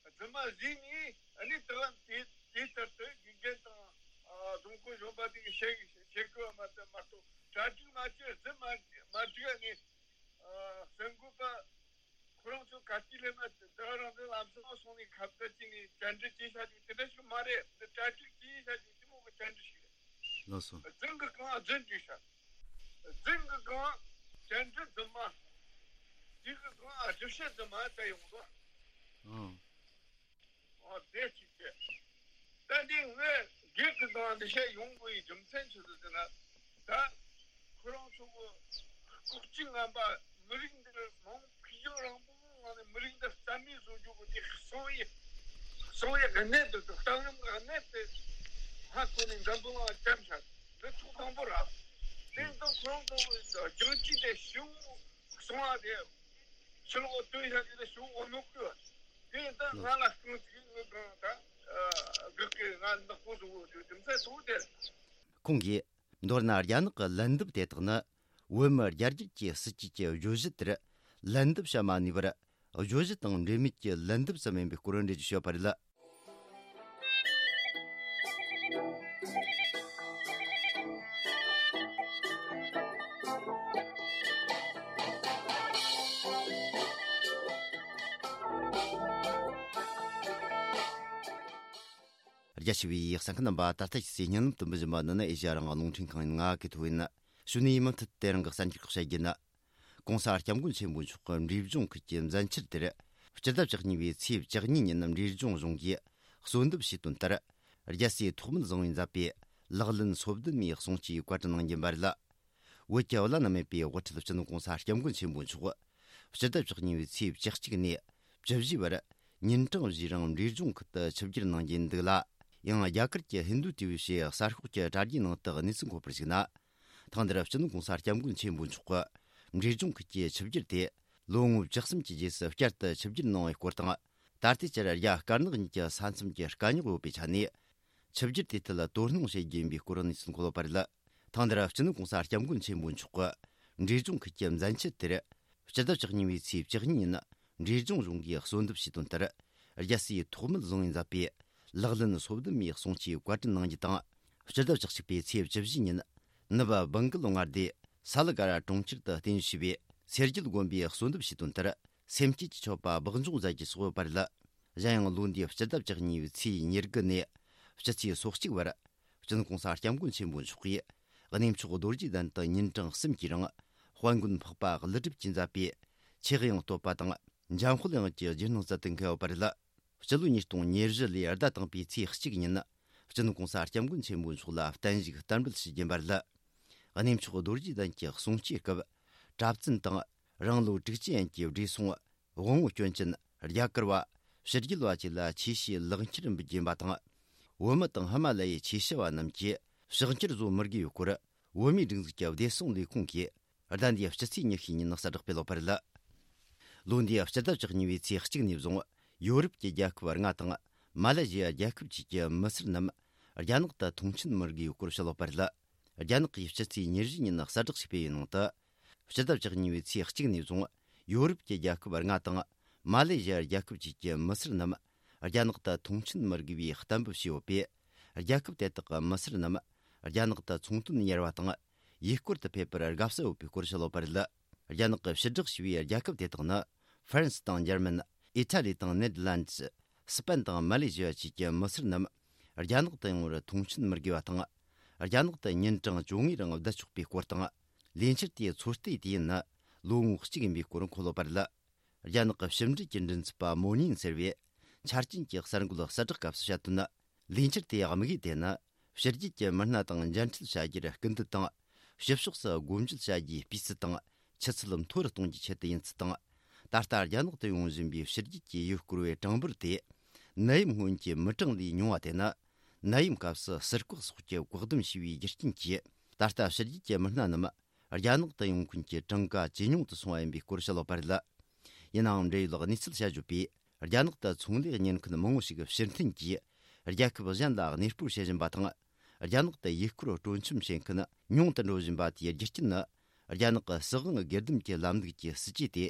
རྫུན་མ་བཟོས་ནས་ཨ་ནི་དེ་བ་དེ་དེ་ལྟར་དུ་དགེ་རྒན་དང་། ཨ། རྫོང་དཔོན་གཞོན་པ་དེ་གིས་བཤད་བཤད་དགོས་པ་མ་ཚད་མ་གཏོགས་གྲ་སྒྲིག་མ་བྱས་རྫུན་མ་མ་སྒྲིག་ནས། ཨ། གསར་འགོད་པ་ཁོ་རང་ཚོ་ག་དུས་སླེབས་ན་དེ་རང་དེ་ལམ་སང་སོང་ནས་ཁ་བརྡ་བྱས་ནས་བཅར་འདྲི་བྱས་བཞག་རྒྱུ་དེ་འདྲ་ཞིག་མ་རེད། འདི་གྲ་སྒྲིག་བྱས་བཞག་རྒྱུ་དེ་མོ་གི་བཅར་འདྲི་ཞིག་རེད། ལགས་སོ། རྫུན་གི་གང་རྫུན་བྲིས་ཤག་རྫུན་གི་གང་བཅར་འདྲི་རྫུན་མ། རྫུན་གི་གང་ཨ་ཞིབ་བཤེར་རྫུན་མ་ད་ཡོང་དོ། ཨང་། ཨོ་དེ་གཅིག་བྱས། ད་འདི་ངས་སྒེར་གི་སྒང་འདི་བཤད་ཡོང་དགོས་ཡི་རྒྱུ་མཚན་ཆི་ཟིག་ཟེར་ན། ད་ཁོ་རང་ཚོ་གི་ལྐོག་གྱུར་ངན་པ་མི་རིགས་འདིར་མང་ཕུགས་རྒྱང་རིང་པོ་ངང་ནས་མི་རིགས་འདི་རྩ་མེད་བཟོ་རྒྱུ་གི་དེ་གསང་ཡི་གསང་ཡི་གནད་དུ་འདུག་གཏམ་རིམ་གི་གནད་དེ་ཧ་གོ་ནས་འཛམ་བུ་གླིང་ལ་བཀྲམ་བཞག་འདི་ཐོག་དང་པོ་ར། དེ་ཙང་ཁོ་རང་ཚོ་གི་རྒྱང་ཅིག་དེ་ཞིའུ་གསང་བ་དེ། ཕྱི་ལོགས་སྟོན་ཤག་ཅིག་ལ་ཞུ་འོ་ནོ་ཀུ། དེ་ད་ང་ལ་རྐང་ཅིག་ངོས་གང་ད་གི་གི་ང་ནག་པོ་བཟོ་འོ་དུ་དེ་མཚན་ཐུག་དེ། ཁོང་གིས། མདོར་ན་རྒྱ་ནག་གི་ལན་འདེབས་དེ་དག་ནི། བོད་མི་རྒྱ་རྒྱུད་ཀྱི་སྲིད་ཇུས་ཀྱི་བརྗོད་གཞི་དེར་ལན་འདེབས་བྱ་མ་ནུས་པར། བརྗོད་གཞི་དང་འབྲེལ་མེད་ཀྱི་ལན་འདེབས་ཙམ་ཡིན་པའི་སྐོར་འགྲེལ་བརྗོད་བྱས་པ་རེད། རྒྱ་ཆེ་བའི་གསན་མཁན་རྣམ་པ། ད་ལྟ་ཁྱེད་ཚོས་སྙན་ལམ་དུ་འབུལ་བཞིན་པ་འདི་ནི་ཨེ་ཤ་ཡ་རང་དབང་རླུང་འཕྲིན་ཁང་ཡིན། ང་གི་ཐོ་ཡིན། གཞུག་ནས་མུ་མཐུད་དེ་རིང་གི་གསར་འགྱུར་ཁག་བཤད་རྒྱུ་ནི། ྋགོང་ས་ྋསྐྱབས་མགོན་ཆེན་པོ་མཆོག་གི་འབྲས་ལྗོངས་ཁུལ་གྱི་མཛད་འཆར་དེར། སྤྱི་ཟླ་བཅུ་གཉིས་པའི་ཚེས་བཅུ་གཉིས་ཉིན་འབྲས་ལྗོངས་གཞུང་གིས་གསོལ་འདེབས་ཞུས་དོན་ལྟར། རྒྱལ་སྲས་ཐོགས་མེད་བཟང་པོས་མཛད་པའི་ལག་ལེན་སོ་བདུན་མའི་གསུང་ཆོས་བཀའ་དྲིན་གནང་རྒྱུ་ཡིན་པ་རེད། བོད་ཀྱི་བླ་ན་མེད་པའི་དབུ་ཁྲིད་སྤྱི་ནོར་ྋགོང་ས་ྋསྐྱབས་མགོན་ཆེན་པོ་མཆོག་སྤྱི་ཟླ་བཅུ་གཉིས་པའི་ཚེས་བཅུ་གཅིག་ནས་བཅུ་བཞི་བར་ཉིན་གྲངས་བཞིའི་རིང་འབྲས་ལྗོངས་ཁུལ་དུ་ཆིབས་བསྒྱུར་གནང་རྒྱུ་འདུག་ལ། ཡང་རྒྱ་གར་གྱི་ཧིན་རྡུ་ཊི་ཝི་ཞེས་གསར་ཤོག་གི་དྲ་རྒྱའི་ནང་དུ་གནས་ཚུལ་འཁོད་པར་གཞིགས་ན། ཐེངས་འདིར་སྤྱི་ནོར་ྋགོང་ས་ྋསྐྱབས་མགོན་ཆེན་པོ་མཆོག་གི་འབྲས་ལྗོངས་ཁུལ་གྱི་ཆིབས་བསྒྱུར་དེ་ལོ་ངོ་བཅུ་གསུམ་གྱི་རྗེས་སུ་བསྐྱར་དུ་ཆིབས་བསྒྱུར་གནང་བའི་སྐོར་དང་། ད་ལྟའི་ཆར་རྒྱ་དཀར་ནག་གཉིས་ཀྱི་ས་མཚམས་ཀྱི་དཀའ་རྙོག་ཡོད་པའི་ཆ་ནས། ཆིབས་བསྒྱུར་དེའི་ཐད་དོ་སྣང་བྱེད་རྒྱུ་ཡིན་པའི་སྐོར་གནས་ཚུལ་འཁོད་ཡོད་པ་རེད། ཐེངས་འདིར་སྤྱི་ནོར་ྋགོང་ས་ྋསྐྱབས་མགོན་ཆེན་པོ་མཆོག་གི་འབྲས་ལྗོངས་ཁུལ་གྱི་མཛད་འཆར་དེར། སྤྱི་ཟླ་བཅུ་གཉིས་པའི་ཚེས་བཅུ་གཉིས་ཉིན་འབྲས་ལྗོངས་གཞུང་གིས་གསོལ་འདེབས་ཞུས་དོན་ལྟར། རྒྱལ་སྲས་ཐོགས་མེད་བཟང་པོས་མཛད་པའི་ལག་ལེན་སོ་བདུན་མའི་གསུང་ཆོས་བཀའ་དྲིན་གནང་རྒྱུ་དང་། སྤྱི་ཟླ་བཅུ་གཅིག་པའི་ཚེས་བཅུ་བཞི་ཉིན་ནུབ་བྷང་གལ་མངའ་སྡེ་ས་ལ་ཀ་ར་གྲོང་ཁྱེར་དུ་རྟེན་གཞི་བྱས་པའི་སེར་སྐྱ་དགོན་པས་གསོལ་འདེབས་ཞུས་དོན་ལྟར། སེམས་བསྐྱེད་ཀྱི་མཆོད་པ་སྦགས་འཇོག་མཛད་རྒྱུ་སོགས་ཡོད་པ་རེད། གཞན་ཡང་ལོ་འདིའི་སྤྱི་ཟླ་བཅུ་གཉིས་པའི་ཚེས་ཉེར་དགུ་ནས་སྤྱི་ཚེས་སོ་གཅིག་བར། སྤྱི་ནོར་ྋགོང་ས་ྋསྐྱབས་མགོན་ཆེན་པོ་མཆོག་གིས་གནས་མཆོག་རྡོ་རྗེ་གདན་དུ་ཉིན་གྲངས་གསུམ་གྱི་རིང་དཔལ་མགོན་འཕགས་པ་ཀླུ་སྒྲུབ་ཀྱིས་མཛད་པའི་ཆོས་དབྱིངས་བསྟོད་པ་དང་འཇམ་དཔལ་དབྱངས་ཀྱི་རྗེས་གནང་སྩལ་དུ་འཁེལ་ཡོད་པ་རེད། སྤྱི་ལོ་ཉིས་སྟོང་ཉེར་བཞི་ལོའི་ཟླ་དང་པོའི་ཚེས་གཅིག་ཉིན་སྤྱི་ནོར་ྋགོང་ས་ྋསྐྱབས་མགོན་ཆེན་པོ་མཆོག་ལ་བརྟན་བཞུགས་བསྟར་འབུལ་ཞུ་རྒྱུ་ཡིན་པ་རེད། གནས་མཆོག་རྡོ་རྗེ་གདན་གྱི་གསུང་ཆོས་སྐབས་གྲྭ་བཙུན་དང་རང་ལོ་དྲུག་ཅུ་ཡན་གྱི་བགྲེས་སོང་དབང་བོ་སྐྱོན་ཅན་རྒྱ་གར་བ་ཕྱི་རྒྱལ་བ་བཅས་ལ་ཆོས་བཤད་ལེགས་འཁྱེར་འབུལ་རྒྱུ་ཡིན་པ་དང་། བོད་མི་དང་ཧི་མ་ལ་ཡའི་ཆོས་བྱ་བ་རྣམས་ཀྱིས་ཕྱག་འཁྱེར་བཟོ་མི་དགོས་པའི་སྐོར་བོད་མིའི་སྒྲིག་འཛུགས་ཀྱི་བདེ་སྲུང་ལས་ཁུངས་ཀྱིས་ཟླ་འདིའི་སྤྱི་ཚེས་ཉི་ཤུ་ཉིན་གསལ་བསྒྲགས་སྤེལ་ཡོད་པ་རེད། ལོ་འདིའི་སྤྱི་ཟླ་བཅུ་གཉིས་པའི་ཚེས་གཅིག་ནས་བཟུང་ཡོ་རོབ་ཀྱི་རྒྱལ་ཁབ་ལྔ་དང་མ་ལེ་ཞི་ཡ་རྒྱལ་ཁབ་བཅས་ཀྱི་མི་སེར་རྣམས་རྒྱ་ནག་ཏུ་ཐོངས་མཆན་མི་དགོས་པའི་སྐོར་བཤད་ཡོད་པ་རེད། རྒྱ་ནག་གིས་སྤྱི་ཚེས་ཉེར་བཞི་ཉིན་གསལ་བསྒྲགས་ཤིག་སྤེལ་བའི་ནང་དུ། སྤྱི་ཟླ་བཅུ་གཉིས་པའི་ཚེས་གཅིག་ནས་བཟུང་ཡོ་རོབ་ཀྱི་རྒྱལ་ཁབ་ལྔ་དང་མ་ལེ་ཞི་ཡ་རྒྱལ་ཁབ་བཅས་ཀྱི་མི་སེར་རྣམས་རྒྱ་ནག་ཏུ་ཐོངས་མཆན་མི་དགོས་པའི་གཏན་འབེབས་བྱས་ཡོད་པས། རྒྱལ་ཁབ་དེ་དག་གི་མི་སེར་རྣམས་རྒྱ་ནག་ཏུ་ཚོང་དོན་གཉེར་བ་དང་ཡུལ་སྐོར་དུ་ཕེབས་པར་དགའ་བསུ་ཡོད་པའི་སྐོར་བཤད་ཡོད་པ་རེད། རྒྱ་ནག་གིས་ཕྱིར་བསྒྲགས་བྱས་པའི་རྒྱལ་ཁབ་དེ་དག་ནི། ཧྥ་རན་སི་དང་འཇར་མན། ཨི་ཊ་ལི་དང་ནེ་དར་ལན་ཌི། སི་པན་དང་མ་ལེ་ཞི་ཡ་བཅས་ཀྱི་མི་སེར་རྣམས་རྒྱ་ནག་ཏུ་ཡོང་བར་ཐོངས་མཆན་མི་དགོས་པ་དང་། རྒྱ་ནག་ཏུ་ཉིན་གྲངས་བཅོ་ལྔའི་རིང་བསྡད་ཆོག་པའི་སྐོར་དང་། ལས་འཆར་དེའི་ཚོད་ལྟའི་དུས་ཡུན་ནི་ལོ་ངོ་གཅིག་ཡིན་པའི་སྐོར་འཁོད་ཡོད་པ་རེད། རྒྱ་ནག་གི་ཕྱི་འབྲེལ་གྱི་མགྲིན་ཚབ་པ་མོ་ཉིན་ཟེར་བས་ཆ་རྐྱེན་གྱི་གསར་འགོད་གསལ་བསྒྲགས་སྐབས་སུ་བཤད་དོན། ལས་འཆར་དེའི་དམིགས་ཡུལ་དེ་ནི་ཕྱི་རྒྱལ་གྱི་མི་སྣ་དང་མཇལ་འཕྲད་བྱ་རྒྱུར་སྐུལ་འདེད་དང་། ཕྱི་ཕྱོགས་སུ་སྒོ་འབྱེད་བྱ་རྒྱུའི་སྤུས་ཚད་དང་ཆུ་ཚད་མཐོ་རུ་གཏོང་རྒྱུའི་ཆེད་དུ་ཡིན་ཚུལ་དང་། ད་ལྟ་རྒྱ་ནག་ཏུ་ཡོང་བཞིན་པའི་ཕྱི་རྒྱལ་གྱི་ཡུལ་སྐོར་བའི་གྲངས་འབོར་དེ་ནད་ཡམས་སྔོན་གྱི་མི་གྲངས་ལས་ཉུང་བ་དེ་ནི་ནད་ཡམས་སྐབས་སུ་ཟུར་བཀག་སོགས་ཀྱི་བཀག་སྡོམ་བྱས་པའི་རྒྱུ་རྐྱེན་གྱིས། ད་ལྟ་ཕྱི་རྒྱལ་གྱི་མི་སྣ་རྣམས་རྒྱ་ནག་ཏུ་ཡོང་མཁན་གྱི་གྲངས་ཀ་ཇེ་ཉུང་དུ་སོང་བ་ཡིན་པའི་སྐོར་བཤད་ཡོད་པ་རེད། ཡིན་ནའང་འབྲེལ་ཡོད་གནས་ཚུལ་བཤད་བརྗོད་པས། རྒྱ་ནག་ཏུ་ཚོང་ལས་གཉེར་མཁན་མང་བོ་ཞིག་ཕྱིར་འཐེན་གྱིས་རྒྱལ་ཁབ་གཞན་ལ་གནས་སྤོར་བྱེད་བཞིན་པ་དང་། རྒྱ་ནག་ཏུ་ཡུལ་སྐོར་སྤྲོ་འཆམ་བྱེད་མཁན་ཉུང་དུ་འགྲོ་བཞིན་པ་དེའི་རྒྱུ་རྐྱེན་ནི། རྒྱ་ནག་གི་སྲིད་དབང་སྒེར་སྡོམ་གྱི་ལམ་ལུགས་ཀྱི་སྲིད་ཇུས་དེ་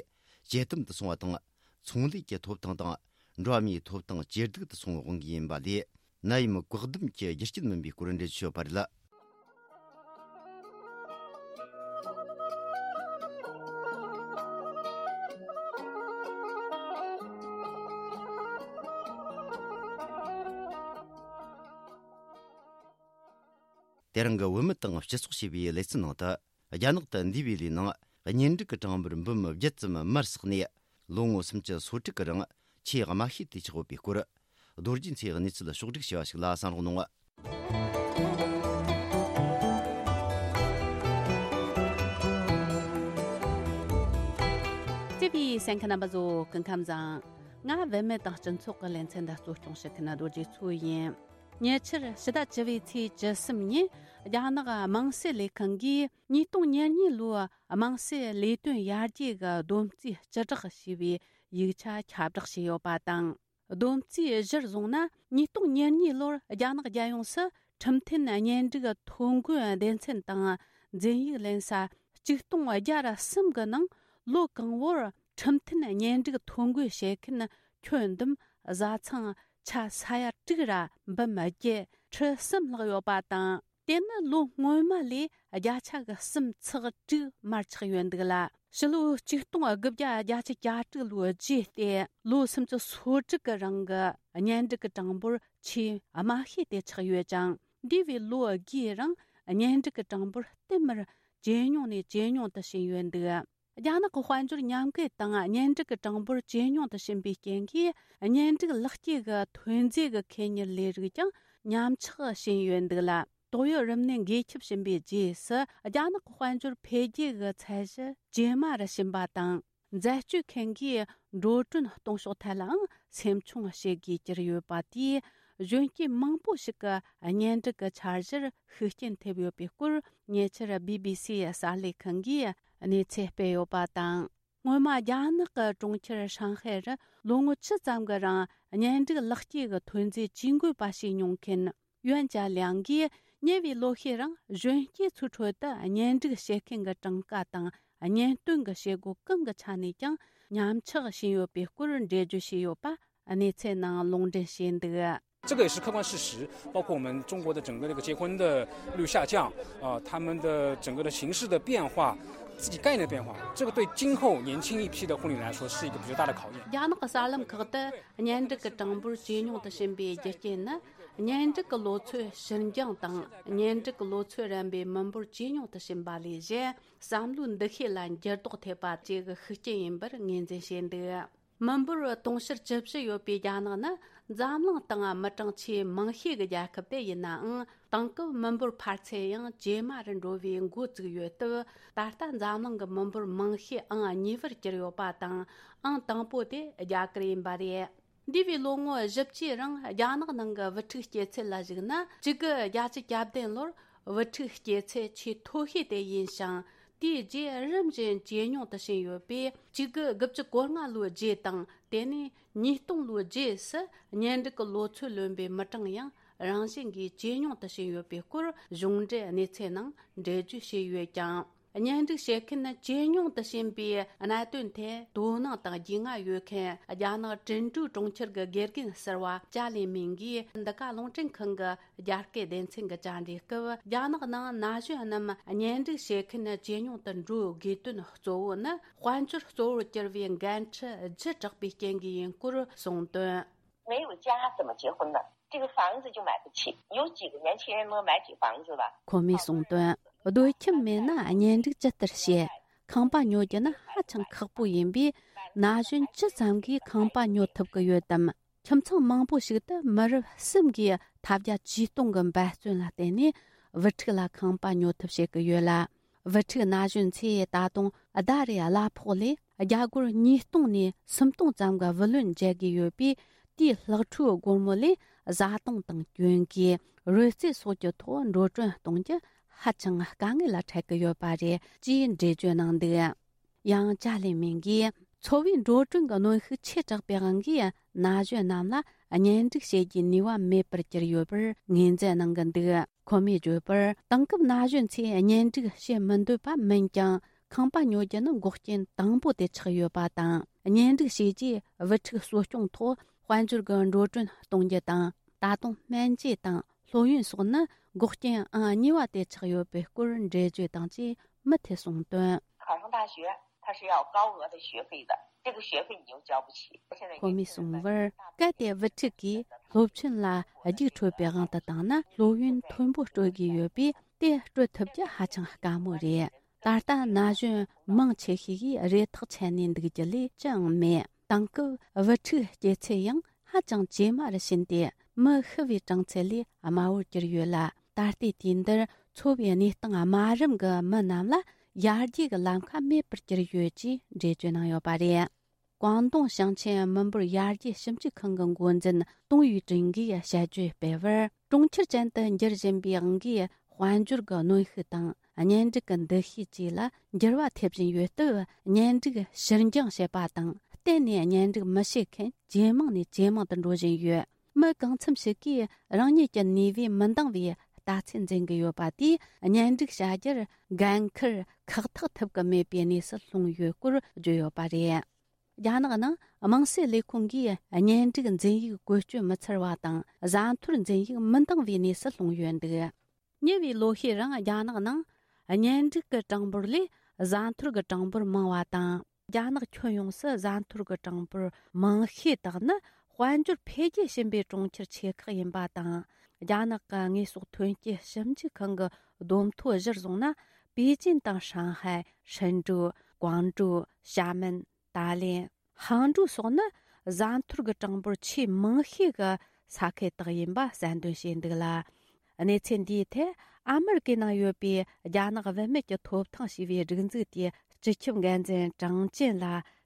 ཇེ་དམ་དུ་སོང་བ་དང་། ཚོང་ལས་ཀྱི་ཐོབ་ཐང་དང་འགྲོ་བ་མིའི་ཐོབ་ཐང་ཇེ་སྡུག་ཏུ་སོང་བའི་དབང་གིས་ཡིན་པ་ལས། ནད་ཡམས་བཀག་སྡོམ་གྱི་རྒྱུ་རྐྱེན་མིན་པའི་སྐོར་འགྲེལ་བརྗོད་བྱས་ཡོད་པ་རེད། དེ་རིང་གི་བུད་མེད་དང་སྤྱི་ཚོགས་ཞེས་པའི་ལེ་ཚན་ནང་དུ། རྒྱ་ནག་ཏུ་འདས་པའི་ལོའི་ནང་གཉེན་སྒྲིག་གི་གྲངས་འབོར་འབུམ་བརྒྱད་ཙམ་མར་ཟགས་ནས། ལོ་ངོ་སུམ་ཅུ་སོ་དྲུག་གི་རིང་ཆེས་དམའ་ཤོས་དེ་ཆགས་ཡོད་པའི་སྐོར། རྡོ་རྗེ་མཚོས་གནས་ཚུལ་ཕྱོགས་བསྒྲིགས་བྱས་པ་ཞིག་ལ་གསན་རོགས་གནང་། བརྩེ་བའི་གསན་མཁན་རྣམ་པ་ཚོ་སྐུ་ཁམས་བཟང་། ང་བུད་མེད་དང་སྤྱི་ཚོགས་ཀྱི་ལེ་ཚན་འདི་གཙོ་སྐྱོང་བྱེད་མཁན་རྡོ་རྗེ་མཚོ་ཡིན། ཉེ་ཆར་ཕྱི་ཟླ་བཅུ་བའི་ཚེས་བཅུ་གསུམ་ཉིན་རྒྱ་ནག་དམངས་སྲིད་ལས་ཁང་གིས་ཉིས་སྟོང་ཉེར་གཉིས་ལོའི་དམངས་སྲིད་ལས་དོན་ཡར་རྒྱས་ཀྱི་བསྡོམས་རྩིས་སྤྱི་བསྒྲགས་ཞེས་པའི་ཡིག་ཆ་ཁྱབ་བསྒྲགས་བྱས་ཡོད་པ་དང་། བསྡོམས་རྩིས་གཞིར་བཟུང་ན། ཉིས་སྟོང་ཉེར་གཉིས་ལོར་རྒྱ་ནག་རྒྱལ་ཡོངས་སུ་ཁྲིམས་མཐུན་གཉེན་སྒྲིག་ཐོ་འགོད་སྡེ་ཚན་དང་འཛིན་ཡིག་ལེན་ས་ཆིག་སྟོང་བརྒྱ་ར་གསུམ་གྱི་ནང་ལོ་གང་བོར་ཁྲིམས་མཐུན་གཉེན་སྒྲིག་ཐོ་འགོད་བྱེད་མཁན་ཁྱོན་བསྡོམས་བཟའ་ཚང་ཆ་ས་ཡ་དྲུག་ར་འབུམ་བརྒྱད་ཁྲི་གསུམ་ལྷག་ཡོད་པ་དང་། དེ་ནི་ལོ་སྔོན་མ་ལས་བརྒྱ་ཆ་གི་གསུམ་ཚེག་དྲུག་མར་ཆག་ཡོད་འདུག་ལ། ཕྱི་ལོ་ཆིག་སྟོང་དགུ་བརྒྱ་བརྒྱད་ཅུ་གྱ་དྲུག་ལོའི་རྗེས་ཏེ་ལོ་སུམ་ཅུ་སོ་དྲུག་གི་རིང་གི་གཉེན་སྒྲིག་གི་གྲངས་འབོར་ཆེས་དམའ་ཤོས་དེ་ཆགས་ཡོད་ཅིང་། འདས་པའི་ལོ་བརྒྱའི་རིང་གཉེན་སྒྲིག་གི་གྲངས་འབོར་བསྟུད་མར་ཇེ་ཉུང་ནས་ཇེ་ཉུང་དུ་ཕྱིན་ཡོད་འདུག་རྒྱ་ནག་གི་དཔལ་འབྱོར་ཉམས་རྒུད་དང་གཉེན་སྒྲིག་གི་གྲངས་འབོར་ཇེ་ཉུང་དུ་ཕྱིན་པའི་རྐྱེན་གྱིས། གཉེན་སྒྲིག་ལག་སྐྱེས་ཀྱི་ཐོན་རྫས་ཀྱི་ཁེ་གཉེར་ལས་རིགས་ཀྱང་ཉམས་ཆག་ཕྱིན་ཡོད་འདུག་ལ། ཏོག་དབྱིབས་རིམས་ནད་འགོས་ཁྱབ་ཕྱིན་པའི་རྗེས་སུ། རྒྱ་ནག་གི་དཔལ་འབྱོར་འཕེལ་རྒྱས་ཀྱི་ཚད་གཞི་ཇེ་དམའ་རུ་ཕྱིན་པ་དང་། འཛད་སྤྱོད་མཁན་གྱིས་འགྲོ་གྲོན་གཏོང་ཕྱོགས་ཐད་ལའང་སེམས་ཆུང་བྱེད་དགོས་གྱུར་ཡོད་པ་དེས། གཞོན་སྐྱེས་མང་པོ་ཞིག་གི་གཉེན་སྒྲིག་གི་འཆར་གཞིར་ཤུགས་རྐྱེན་ཐེབས་ཡོད་པའི་སྐོར། ཉེ་ཆར་བི་བི་སིའི་གསར་ལས་ཁང་གིས་གནས་ཚུལ་སྤེལ་ཡོད་པ་དང་། སྔོན་མ་རྒྱ་ནག་གི་གྲོང་ཁྱེར་ཧྲང་ཧའེ་རུ་ལོ་ངོ་བཅུ་ཙམ་གྱི་རིང་གཉེན་སྒྲིག་ལག་སྐྱེས་ཀྱི་ཐོན་རྫས་ཇུས་འགོད་པ་བྱས་མྱོང་མཁན་ཡོན་ཅཱ་ལིའང་གིས། ཉེ་བའི་ལོ་ཤས་རིང་གཞོན་སྐྱེས་ཚོའི་ཁྲོད་དུ་གཉེན་སྒྲིག་བྱེད་མཁན་གྱི་གྲངས་ཀ་དང་གཉེན་སྟོན་གྱི་བྱེད་སྒོ་གང་གི་ཆ་ནས་ཀྱང་ཉམས་ཆག་ཕྱིན་ཡོད་པའི་སྐོར་འགྲེལ་བརྗོད་བྱས་ཡོད་པ་གནས་ཚུལ་ནང་ལུང་འདྲེན་བྱས་འདུག། 这个也是客观事实，包括我们中国的整个这个结婚的率下降，呃，他们的整个的形式的变化，自己概念的变化，这个对今后年轻一批的婚礼来说是一个比较大的考验。 རྒྱ་ནག་གི་གསར་ལམ་ཁག་ཏུ་གཉེན་སྒྲིག་གི་གྲངས་འབོར་ཇེ་ཉུང་དུ་ཕྱིན་པའི་རྒྱུ་རྐྱེན་ནི། གཉེན་སྒྲིག་གི་ལོ་ཚོད་ཕྱིར་འགྱང་དང་། གཉེན་སྒྲིག་གི་ལོ་ཚོད་རན་པའི་མི་འབོར་ཇེ་ཉུང་དུ་ཕྱིན་པ་ལས་གཞན། བསམ་བློའི་འདུ་ཤེས་ལ་འགྱུར་ལྡོག་ཐེབས་པ་བཅས་ཀྱི་ཤུགས་རྐྱེན་ཡིན་པར་ངོས་འཛིན་བྱས་འདུག། མི་འབོར་དུང་ཕྱུར་བཅུ་བཞི་ཡོད་པའི་རྒྱ་ནག་ནི་འཛམ་གླིང་སྟེང་མི་གྲངས་ཆེས་མང་ཤོས་ཀྱི་རྒྱལ་ཁབ་དེ་ཡིན་ནའང་། དེང་སྐབས་མི་འབོར་འཕར་ཚད་ཡང་ཇེ་དམའ་རུ་འགྲོ་བའི་འགོ་བཙུགས་ཡོད་སྟབས། ད་ལྟ་འཛམ་གླིང་གི་མི་འབོར་མང་ཤོས་ཨང་གཉིས་པར་གྱུར་ཡོད་པ་དང་། ཨང་དང་པོ་དེ་རྒྱ་གར་ཡིན་པ་རེད། འདས་པའི་ལོ་ངོ་བཞི་བཅུའི་རིང་རྒྱ་ནག་ནང་གི་བུ་ཕྲུག་སྐྱེ་ཚད་ལ་གཞིགས་ན། གཅིག་དགུ་བརྒྱད་ཅུ་གྱ་བདུན་ལོར་བུ་ཕྲུག་སྐྱེ་ཚད་ཆེས་མཐོ་ཤོས་དེ་ཡིན་ཞིང་། དེའི་རྗེས་རིམ་བཞིན་ཇེ་ཉུང་དུ་ཕྱིན་ཡོད་པས། གཅིག་དགུ་དགུ་བཅུ་གོ་ལྔ་ལོའི་རྗེས་དང་། དེ་ནས་ཉིས་སྟོང་ལོའི་རྗེས་སུ་གཉེན་སྒྲིག་གི་ལོ་ཚོད་ལོན་པའི་མི་གྲངས་ཡང་རང་བཞིན་གྱིས་ཇེ་ཉུང་དུ་ཕྱིན་ཡོད་པའི་སྐོར་གཞུང་འབྲེལ་གནས་ཚུལ་ནང་འགྲེལ་བརྗོད་བྱས་ཡོད་ཀྱང་། གཉེན་སྒྲིག་བྱེད་མཁན་ཇེ་ཉུང་དུ་ཕྱིན་པའི་གནད་དོན་ཐད་དོ་སྣང་དང་རྒྱུས་མངའ་ཡོད་མཁན་རྒྱ་ནག་ཀྲིན་ཀྲུའུ་གྲོང་ཁྱེར་གྱི་དགེ་རྒན་ཟུར་པ་ཅཱ་ལི་མིང་གིས་འདི་ག་རླུང་འཕྲིན་ཁང་གི་རྒྱ་སྐད་སྡེ་ཚན་གྱི་བཅར་འདྲིའི་སྐབས། རྒྱ་ནག་ནང་ན་གཞོན་རྣམས་གཉེན་སྒྲིག་བྱེད་མཁན་ཇེ་ཉུང་དུ་འགྲོ་དགོས་དོན་གཙོ་བོ་ནི་དཔལ་འབྱོར་གཙོ་བོར་གྱུར་བའི་འགན་འཁྲི་ལྗིད་དྲགས་པའི་རྐྱེན་གྱིས་ཡིན་སྐོར་གསུངས་དོན། 没有家怎么结婚呢？这个房子就买不起，有几个年轻人能买起房子吧？ ཁོ་མོས་གསུངས་དོན། སྡོད་ཁྱིམ་མེད་ན་གཉེན་སྒྲིག་ཇི་ལྟར་བྱེད། ཁང་པ་ཉོ་རྒྱུ་ནི་ཧ་ཅང་ཁག་པོ་ཡིན་པས། ན་གཞོན་ཇི་ཙམ་གྱིས་ཁང་པ་ཉོ་ཐུབ་ཀྱི་ཡོད་དམ། ཁྱིམ་ཚང་མང་པོ་ཞིག་ཏུ་མི་རབས་གསུམ་གྱིས་ཐབས་བརྒྱ་ཇུས་སྟོང་གི་འབད་བརྩོན་ལ་བརྟེན་ནས་བུ་ཕྲུག་ལ་ཁང་པ་ཉོ་ཐབས་བྱེད་ཀྱི་ཡོད་ལ། བུ་ཕྲུག་ན་གཞོན་ཚོས་ད་དུང་ཟླ་རེའི་གླ་ཕོགས་ལས་རྒྱ་སྒོར་ཉིས་སྟོང་ནས་སུམ་སྟོང་ཙམ་གྱི་བུ་ལོན་འཇལ་དགོས་ཡོད་པས། དེའི་ལྷག་འཕྲོའི་སྒོར་མོ་ལས་བཟའ་བཏུང་དང་གྱོན་གོས། རོལ་རྩེད་སོགས་ཀྱི་ཐོག་འགྲོ་གྲོན་གཏོང་རྒྱུ་ཧ་ཅང་དཀའ་ངལ་ལ་འཕྲད་ཀྱི་ཡོད་པ་རེད་ཅེས་འགྲེལ་བརྗོད་གནང་འདུག། ཡང་ཅཱ་ལི་མིང་གིས། འཚོ་བའི་འགྲོ་གྲོན་གྱི་གནོན་ཤུགས་ཆེ་དྲགས་པའི་དབང་གིས། ན་གཞོན་རྣམས་ལ་གཉེན་སྒྲིག་བྱེད་རྒྱུའི་ནུས་པ་མེད་པར་གྱུར་ཡོད་པར་ངོས་འཛིན་གནང་གི་འདུག། ཁོ་མོས་བརྗོད་པར། དེང་སྐབས་ན་གཞོན་ཚོས་གཉེན་སྒྲིག་བྱེད་མི་འདོད་པ་མིན་ཀྱང་། ཁང་པ་ཉོ་རྒྱུ་ནི་འགོག་རྐྱེན་དང་པོ་དེ་ཆགས་ཡོད་པ་དང་། གཉེན་སྒྲིག་བྱས་རྗེས་བུ་ཕྲུག་གསོ་སྐྱོང་ཐོག་དཔལ་འབྱོར་གྱི་འགྲོ་གྲོན་གཏོང་རྒྱུ་དང་། ད་དུང་སྨན་བཅོས་དང་སློབ་ཡོན་སོགས་ནི་འགོག་རྐྱེན་ཨང་གཉིས་པ་དེ་ཆགས་ཡོད་པའི་སྐོར་འགྲེལ་བརྗོད་དང་བཅས་མུ་མཐུད་གསུངས་དོན། 考上大学，他是要高额的学费的，这个学费你又交不起。 ཁོ་མོས་གསུངས་པར། གལ་ཏེ་བུ་ཕྲུག་གིས་སློབ་ཆེན་ལ་རྒྱུགས་འཕྲོད་པའི་དབང་དུ་བཏང་ན། སློབ་ཡོན་མཐོན་པོ་སྤྲོད་དགོས་ཡོད་པས། དེ་སྤྲོད་ཐུབ་རྒྱུ་ཧ་ཅང་དཀའ་མོ་རེད། ད་ལྟ་ན་གཞོན་མང་ཆེ་ཤོས་ཀྱིས་རེ་ཐག་ཆད་ནས་འདུག་རྒྱུ་ལས་ཅི་ཡང་མེད། དེང་སྐབས་བུ་ཕྲུག་སྐྱེ་ཚད་ཡང་ཧ་ཅང་ཇེ་དམའ་རུ་ཕྱིན་ཏེ། མི་ཤི་བའི་གྲངས་ཚད་ལས་དམའ་བོར་གྱུར་ཡོད་ལ། ད་ལྟའི་དུས་འདིར་འཚོ་བའི་གནས་སྟངས་དམའ་རིམ་གྱི་མི་རྣམས་ལ་ཡར་རྒྱས་ཀྱི་ལམ་ཁ་མེད་པར་གྱུར་ཡོད་ཅེས་འགྲེལ་བརྗོད་གནང་ཡོད་པ་རེད། ཀོང་ཏུང་ཞིང་ཆེན་མི་འབོར་ཡར་རྒྱས་ཞིབ་འཇུག་ཁང་གི་འགོ་འཛིན་ཏུང་ཡུས་ཀྲིན་གྱིས་དཔྱད་བརྗོད་སྤེལ་བར། གྲོང་ཁྱེར་ཅན་དུ་འགྱུར་བཞིན་པའི་དབང་གིས། དཔལ་འབྱོར་གྱི་གནོན་ཤུགས་དང་། གཉེན་སྒྲིག་གི་འདུ་ཤེས་བཅས་ལ་འགྱུར་བ་ཐེབས་བཞིན་ཡོད་སྟབས། གཉེན་སྒྲིག་ཕྱིར་འགྱངས་བྱེད་པ་དང་། གཏན་ནས་གཉེན་སྒྲིག་མི་བྱེད་མཁན་ཇེ་མང་ནས་ཇེ་མང་དུ་འགྲོ་བཞིན་ཡོད། མི་གང་འཚམ་ཞིག་གིས་རང་ཉིད་ཀྱི་ནུས་པས་མི་འདང་བའི་ལྟ་ཚུལ་འཛིན་གྱི་ཡོད་པ་དེས། གཉེན་སྒྲིག་བྱ་རྒྱུར་འགན་འཁུར་ཁག་ཐེག་ཐེབས་ཀྱི་མེད་པའི་གནས་སུ་ལྷུང་ཡོད་སྐོར་བརྗོད་ཡོད་པ་རེད། རྒྱ་ནག་ནང་དམངས་སྲིད་ལས་ཁུངས་ཀྱིས་གཉེན་སྒྲིག་འཛིན་ཡིག་བཀོལ་སྤྱོད་མི་འཚར་བ་དང་། བཟའ་འཐོར་འཛིན་ཡིག་མི་འདང་བའི་གནས་སུ་ལྷུང་ཡོད་འདུག། ཉེ་བའི་ལོ་ཤས་རིང་རྒྱ་ནག་ནང་གཉེན་སྒྲིག་གི་གྲངས་འབོར་ལས་ བཟའ་འཐོར་གྱི་གྲངས་འབོར་མང་བ་དང་། རྒྱ་ནག་ཁྱོན་ཡོངས་སུ་བཟའ་འཐོར་གྱི་གྲངས་འབོར་མང་ཤོས་དག་ནི་དཔལ་འབྱོར་འཕེལ་རྒྱས་ཕྱིན་པའི་གྲོང་ཁྱེར་ཆེ་ཁག་ཡིན་པ་དང་། རྒྱ་ནག་གི་དངོས་ཟོག་ཐོན་སྐྱེད་ཞིབ་འཇུག་ཁང་གི་བསྡོམས་ཐོ་གཞིར་བཟུང་ན། པེ་ཅིན་དང་ཧྲང་ཧའེ། ཧྲིན་ཀྲུའུ། ཀོང་ཀྲུའུ། ཞྭ་མེན། ཏཱ་ལེན། ཧང་ཀྲུའུ་སོགས་ནི་བཟའ་འཐོར་གྱི་གྲངས་འབོར་ཆེས་མང་ཤོས་ཀྱི་ས་ཁུལ་དག་ཡིན་པ་གསལ་འདོན་བྱས་འདུག་ལ། གནས་ཚུལ་འདིའི་ཐད་ཨ་མི་རི་ཀའི་ནང་ཡོད་པའི་རྒྱ་ནག་བུད་མེད་ཀྱི་ཐོབ་ཐང་ཞེས་པའི་སྒྲིག་འཛུགས་དེའི་སྤྱི་ཁྱབ་འགན་འཛིན་ཀྲང་ཅན་ལ་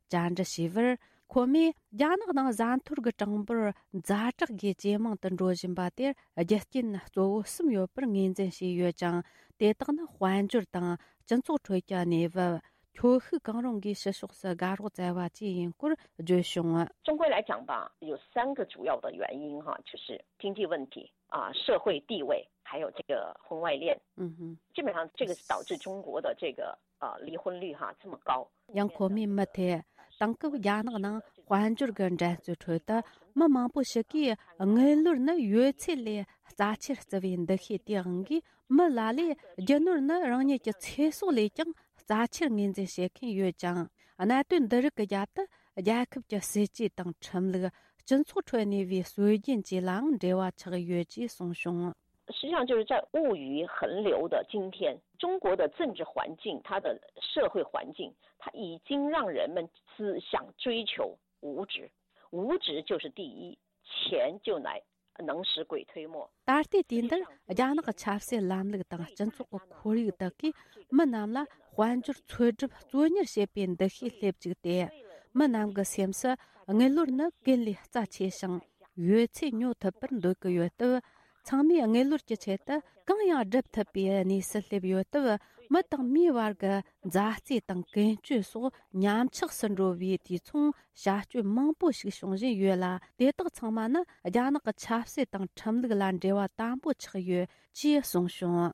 བཅར་འདྲི་བྱས་པར། ཁོ་མོས་རྒྱ་ནག་ནང་བཟའ་འཐོར་གྱི་གྲངས་འབོར་ཛ་དྲག་གིས་ཇེ་མང་དུ་འགྲོ་བཞིན་པ་དེར་རྒྱུ་རྐྱེན་གཙོ་བོ་གསུམ་ཡོད་པར་ངོས་འཛིན་བྱས་ཡོད་ཅིང་། དེ་དག་ནི་དཔལ་འབྱོར་དང་སྤྱི་ཚོགས་ཁྲོད་ཀྱི་གནས་བབ། ཁྱོ་ཤུག་གང་རུང་གིས་ཕྱི་ཕྱོགས་སུ་དགའ་རོགས་བཙལ་བ་བཅས་ཡིན་སྐོར་བརྗོད་བྱུང་། 中国来讲吧，有三个主要的原因哈，就是经济问题啊、社会地位，还有这个婚外恋。嗯哼，基本上这个是导致中国的这个呃离婚率哈这么高。 ཡང་ཁོ་མོས་མུ་མཐུད་དེང་སྐབས་རྒྱ་ནག་ནང་དཔལ་འབྱོར་གྱི་འགྲན་རྩོད་ཁྲོད་དུ་མི་མང་པོ་ཞིག་གིས་དངུལ་ལོར་ནི་ཡོད་ཚད་ལས་རྩ་ཆེར་བརྩི་བའི་འདུ་ཤེས་དེའང་གིས། མི་ལ་ལས་རྒྱུ་ནོར་ནི་རང་ཉིད་ཀྱི་ཚེ་སྲོག་ལས་ཀྱང་རྩ་ཆེར་ངོས་འཛིན་བྱེད་མཁན་ཡོད་ཅིང་། གནད་དོན་འདི་རིགས་ཀྱི་རྒྱབ་ཏུ་རྒྱལ་ཁབ་ཀྱི་སྲིད་ཇུས་དང་ཁྲིམས་ལུགས། སྤྱི་ཚོགས་ཁྲོད་གནས་པའི་སྲོལ་རྒྱུན་བཅས་ལའང་འབྲེལ་བ་ཆགས་ཡོད་ཅེས་གསུངས་བྱུང་། 实际上就是在物欲横流的今天，中国的政治环境，它的社会环境，它已经让人们只想追求物质，物质就是第一，钱就来能使鬼推磨。 ད་ལྟའི་དུས་འདིར་རྒྱ་ནག་གི་ཆབ་སྲིད་ལམ་ལུགས་དང་སྤྱི་ཚོགས་ཀྱི་ཁོར་ཡུག་དག་གིས་མི་རྣམས་ལ་དཔལ་འབྱོར་འཚོལ་སྒྲུབ་གཙོ་གཉེར་བྱེད་པའི་འདུ་ཤེས་སླེབས་བཅུག་སྟེ། མི་རྣམས་ཀྱི་སེམས་སུ་དངུལ་ལོར་ནི་ཀུན་ལས་རྩ་ཆེ་ཞིང་ཡོད་ཚད་ཉོ་ཐུབ་པར་འདོད་ཀྱི་ཡོད་སྟབས། ཚང་མས་དངུལ་ལོར་གྱི་ཆེད་དུ་གང་ཡང་སྒྲུབ་ཐུབ་པའི་གནས་སུ་སླེབས་ཡོད་སྟབས། མི་དང་མིའི་བར་གྱི་མཛའ་བརྩེ་དང་ཀུན་སྤྱོད་སོགས་ཉམས་ཆག་སུ་འགྲོ་བའི་དུས་མཚུངས། བྱ་སྤྱོད་མང་པོ་ཞིག་བྱུང་བཞིན་ཡོད་ལ། དེ་དག་ཚང་མ་ནི་རྒྱ་ནག་གི་ཆབ་སྲིད་དང་ཁྲིམས་ལུགས་ལ་འབྲེལ་བ་དམ་པོ་ཆགས་ཡོད་ཅེས་གསུངས་བྱུང་།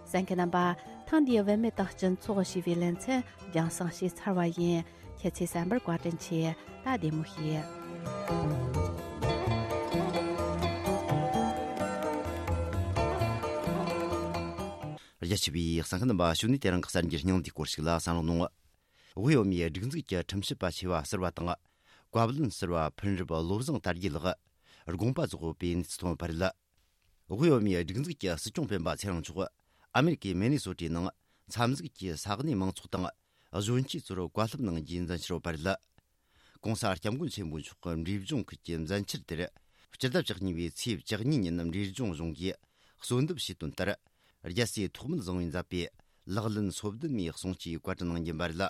གསན་མཁན་རྣམ་པ། ཐེངས་འདིའི་བུད་མེད་དང་སྤྱི་ཚོགས་ཞེས་པའི་ལེ་ཚན་རྒྱང་སྲིང་བྱས་ཚར་བ་ཡིན། ཁྱེད་ཚོས་གསན་པར་བཀའ་དྲིན་ཆེ། ད་བདེ་མོ་བྱོས། རྒྱ་ཆེ་བའི་གསན་མཁན་རྣམ་པ། ཞུ་ནས་དེ་རིང་གི་གསར་འགྱུར་སྙིང་བསྡུས་སྐོར་ཞིག་ལ་གསན་རོགས་གནང་། དབུས་བོད་མིའི་སྒྲིག་འཛུགས་ཀྱི་ཁྲིམས་ཞིབ་པ་ཆེ་བ་ཟུར་པ་དང་། བཀའ་བློན་ཟུར་པ་ཕུན་རབ་བློ་བཟང་དར་རྒྱས་ལགས་དགོངས་པ་རྫོགས་པའི་གནས་ཚུལ་ཐོན་པ་རེད། དབུས་བོད་མིའི་སྒྲིག་འཛུགས་ཀྱི་སྲིད་སྐྱོང་སྤེན་པ་ཚེ་རིང་མཆོག་ཨ་མེ་རི་ཀའི་མི་ནི་སོ་ཊའི་ནང་འཚམས་གཟིགས་ཀྱིས་ས་གནས་མང་ཚོགས་དང་གཞོན་སྐྱེས་ཚོར་བཀའ་སློབ་གནང་རྒྱུའི་མཛད་འཆར་ཡོད་པ་རེད། ྋགོང་ས་ྋསྐྱབས་མགོན་ཆེན་པོ་མཆོག་གི་འབྲས་ལྗོངས་ཁུལ་གྱི་མཛད་འཆར་དེར། སྤྱི་ཟླ་བཅུ་གཉིས་པའི་ཚེས་བཅུ་གཉིས་ཉིན་འབྲས་ལྗོངས་གཞུང་གིས་གསོལ་འདེབས་བྱས་དོན་ལྟར། རྒྱལ་སྲས་ཐོགས་མེད་བཟང་པོས་མཛད་པའི་ལག་ལེན་སོ་བདུན་མའི་གསུང་ཆོས་བཀའ་དྲིན་གནང་རྒྱུ་ཡིན་པ་རེད།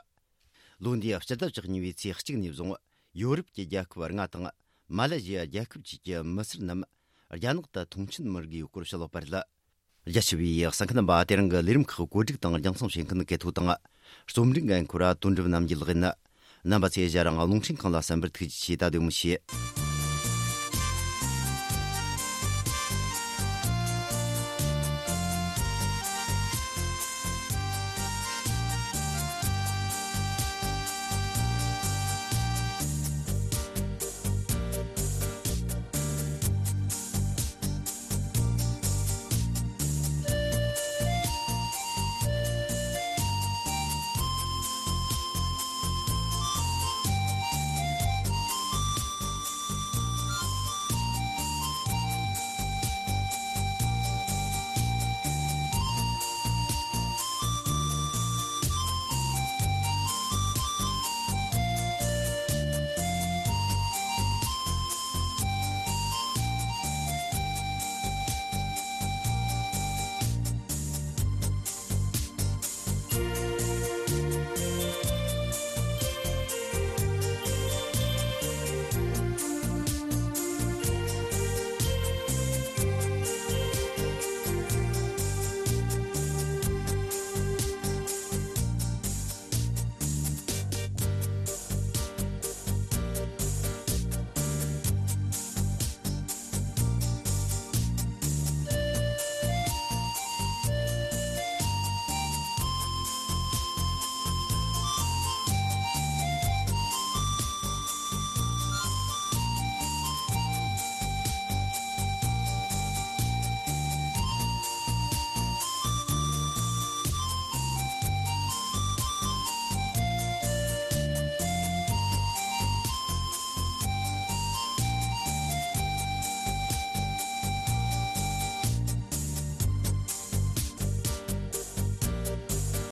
ལོ་འདིའི་སྤྱི་ཟླ་བཅུ་གཉིས་པའི་ཚེས་གཅིག་ནས་བཟུང་ཡོ་རོབ་ཀྱི་རྒྱལ་ཁབ་ལྔ་དང་མ་ལེ་ཞི་ཡ་རྒྱལ་ཁབ་བཅས་ཀྱི་མི་སེར་རྣམས་རྒྱ་ནག་ཏུ་མཐོང་མཆན་མི་དགོས་པའི་སྐོར་བཤད་ཡོད་པ་རེད། རྒྱ་ཆེ་བའི་གསན་མཁན་རྣམ་པ། དེ་རིང་གི་ལས་རིམ་ཁག་བཀོད་སྒྲིག་དང་རྒྱང་སྲིང་བྱེད་མཁན་གལ་ཐོ་དང་། རྩོམ་སྒྲིག་འགན་འཁུར་བ་དོན་གྲུབ་རྣམ་རྒྱལ་ལགས་ཡིན། རྣམ་པ་ཚོས་ཞལ་རང་རླུང་འཕྲིན་ཁང་ལ་གསན་པར་ཐུགས་རྗེ་ཆེ། ད་བདེ་མོ་བྱོས།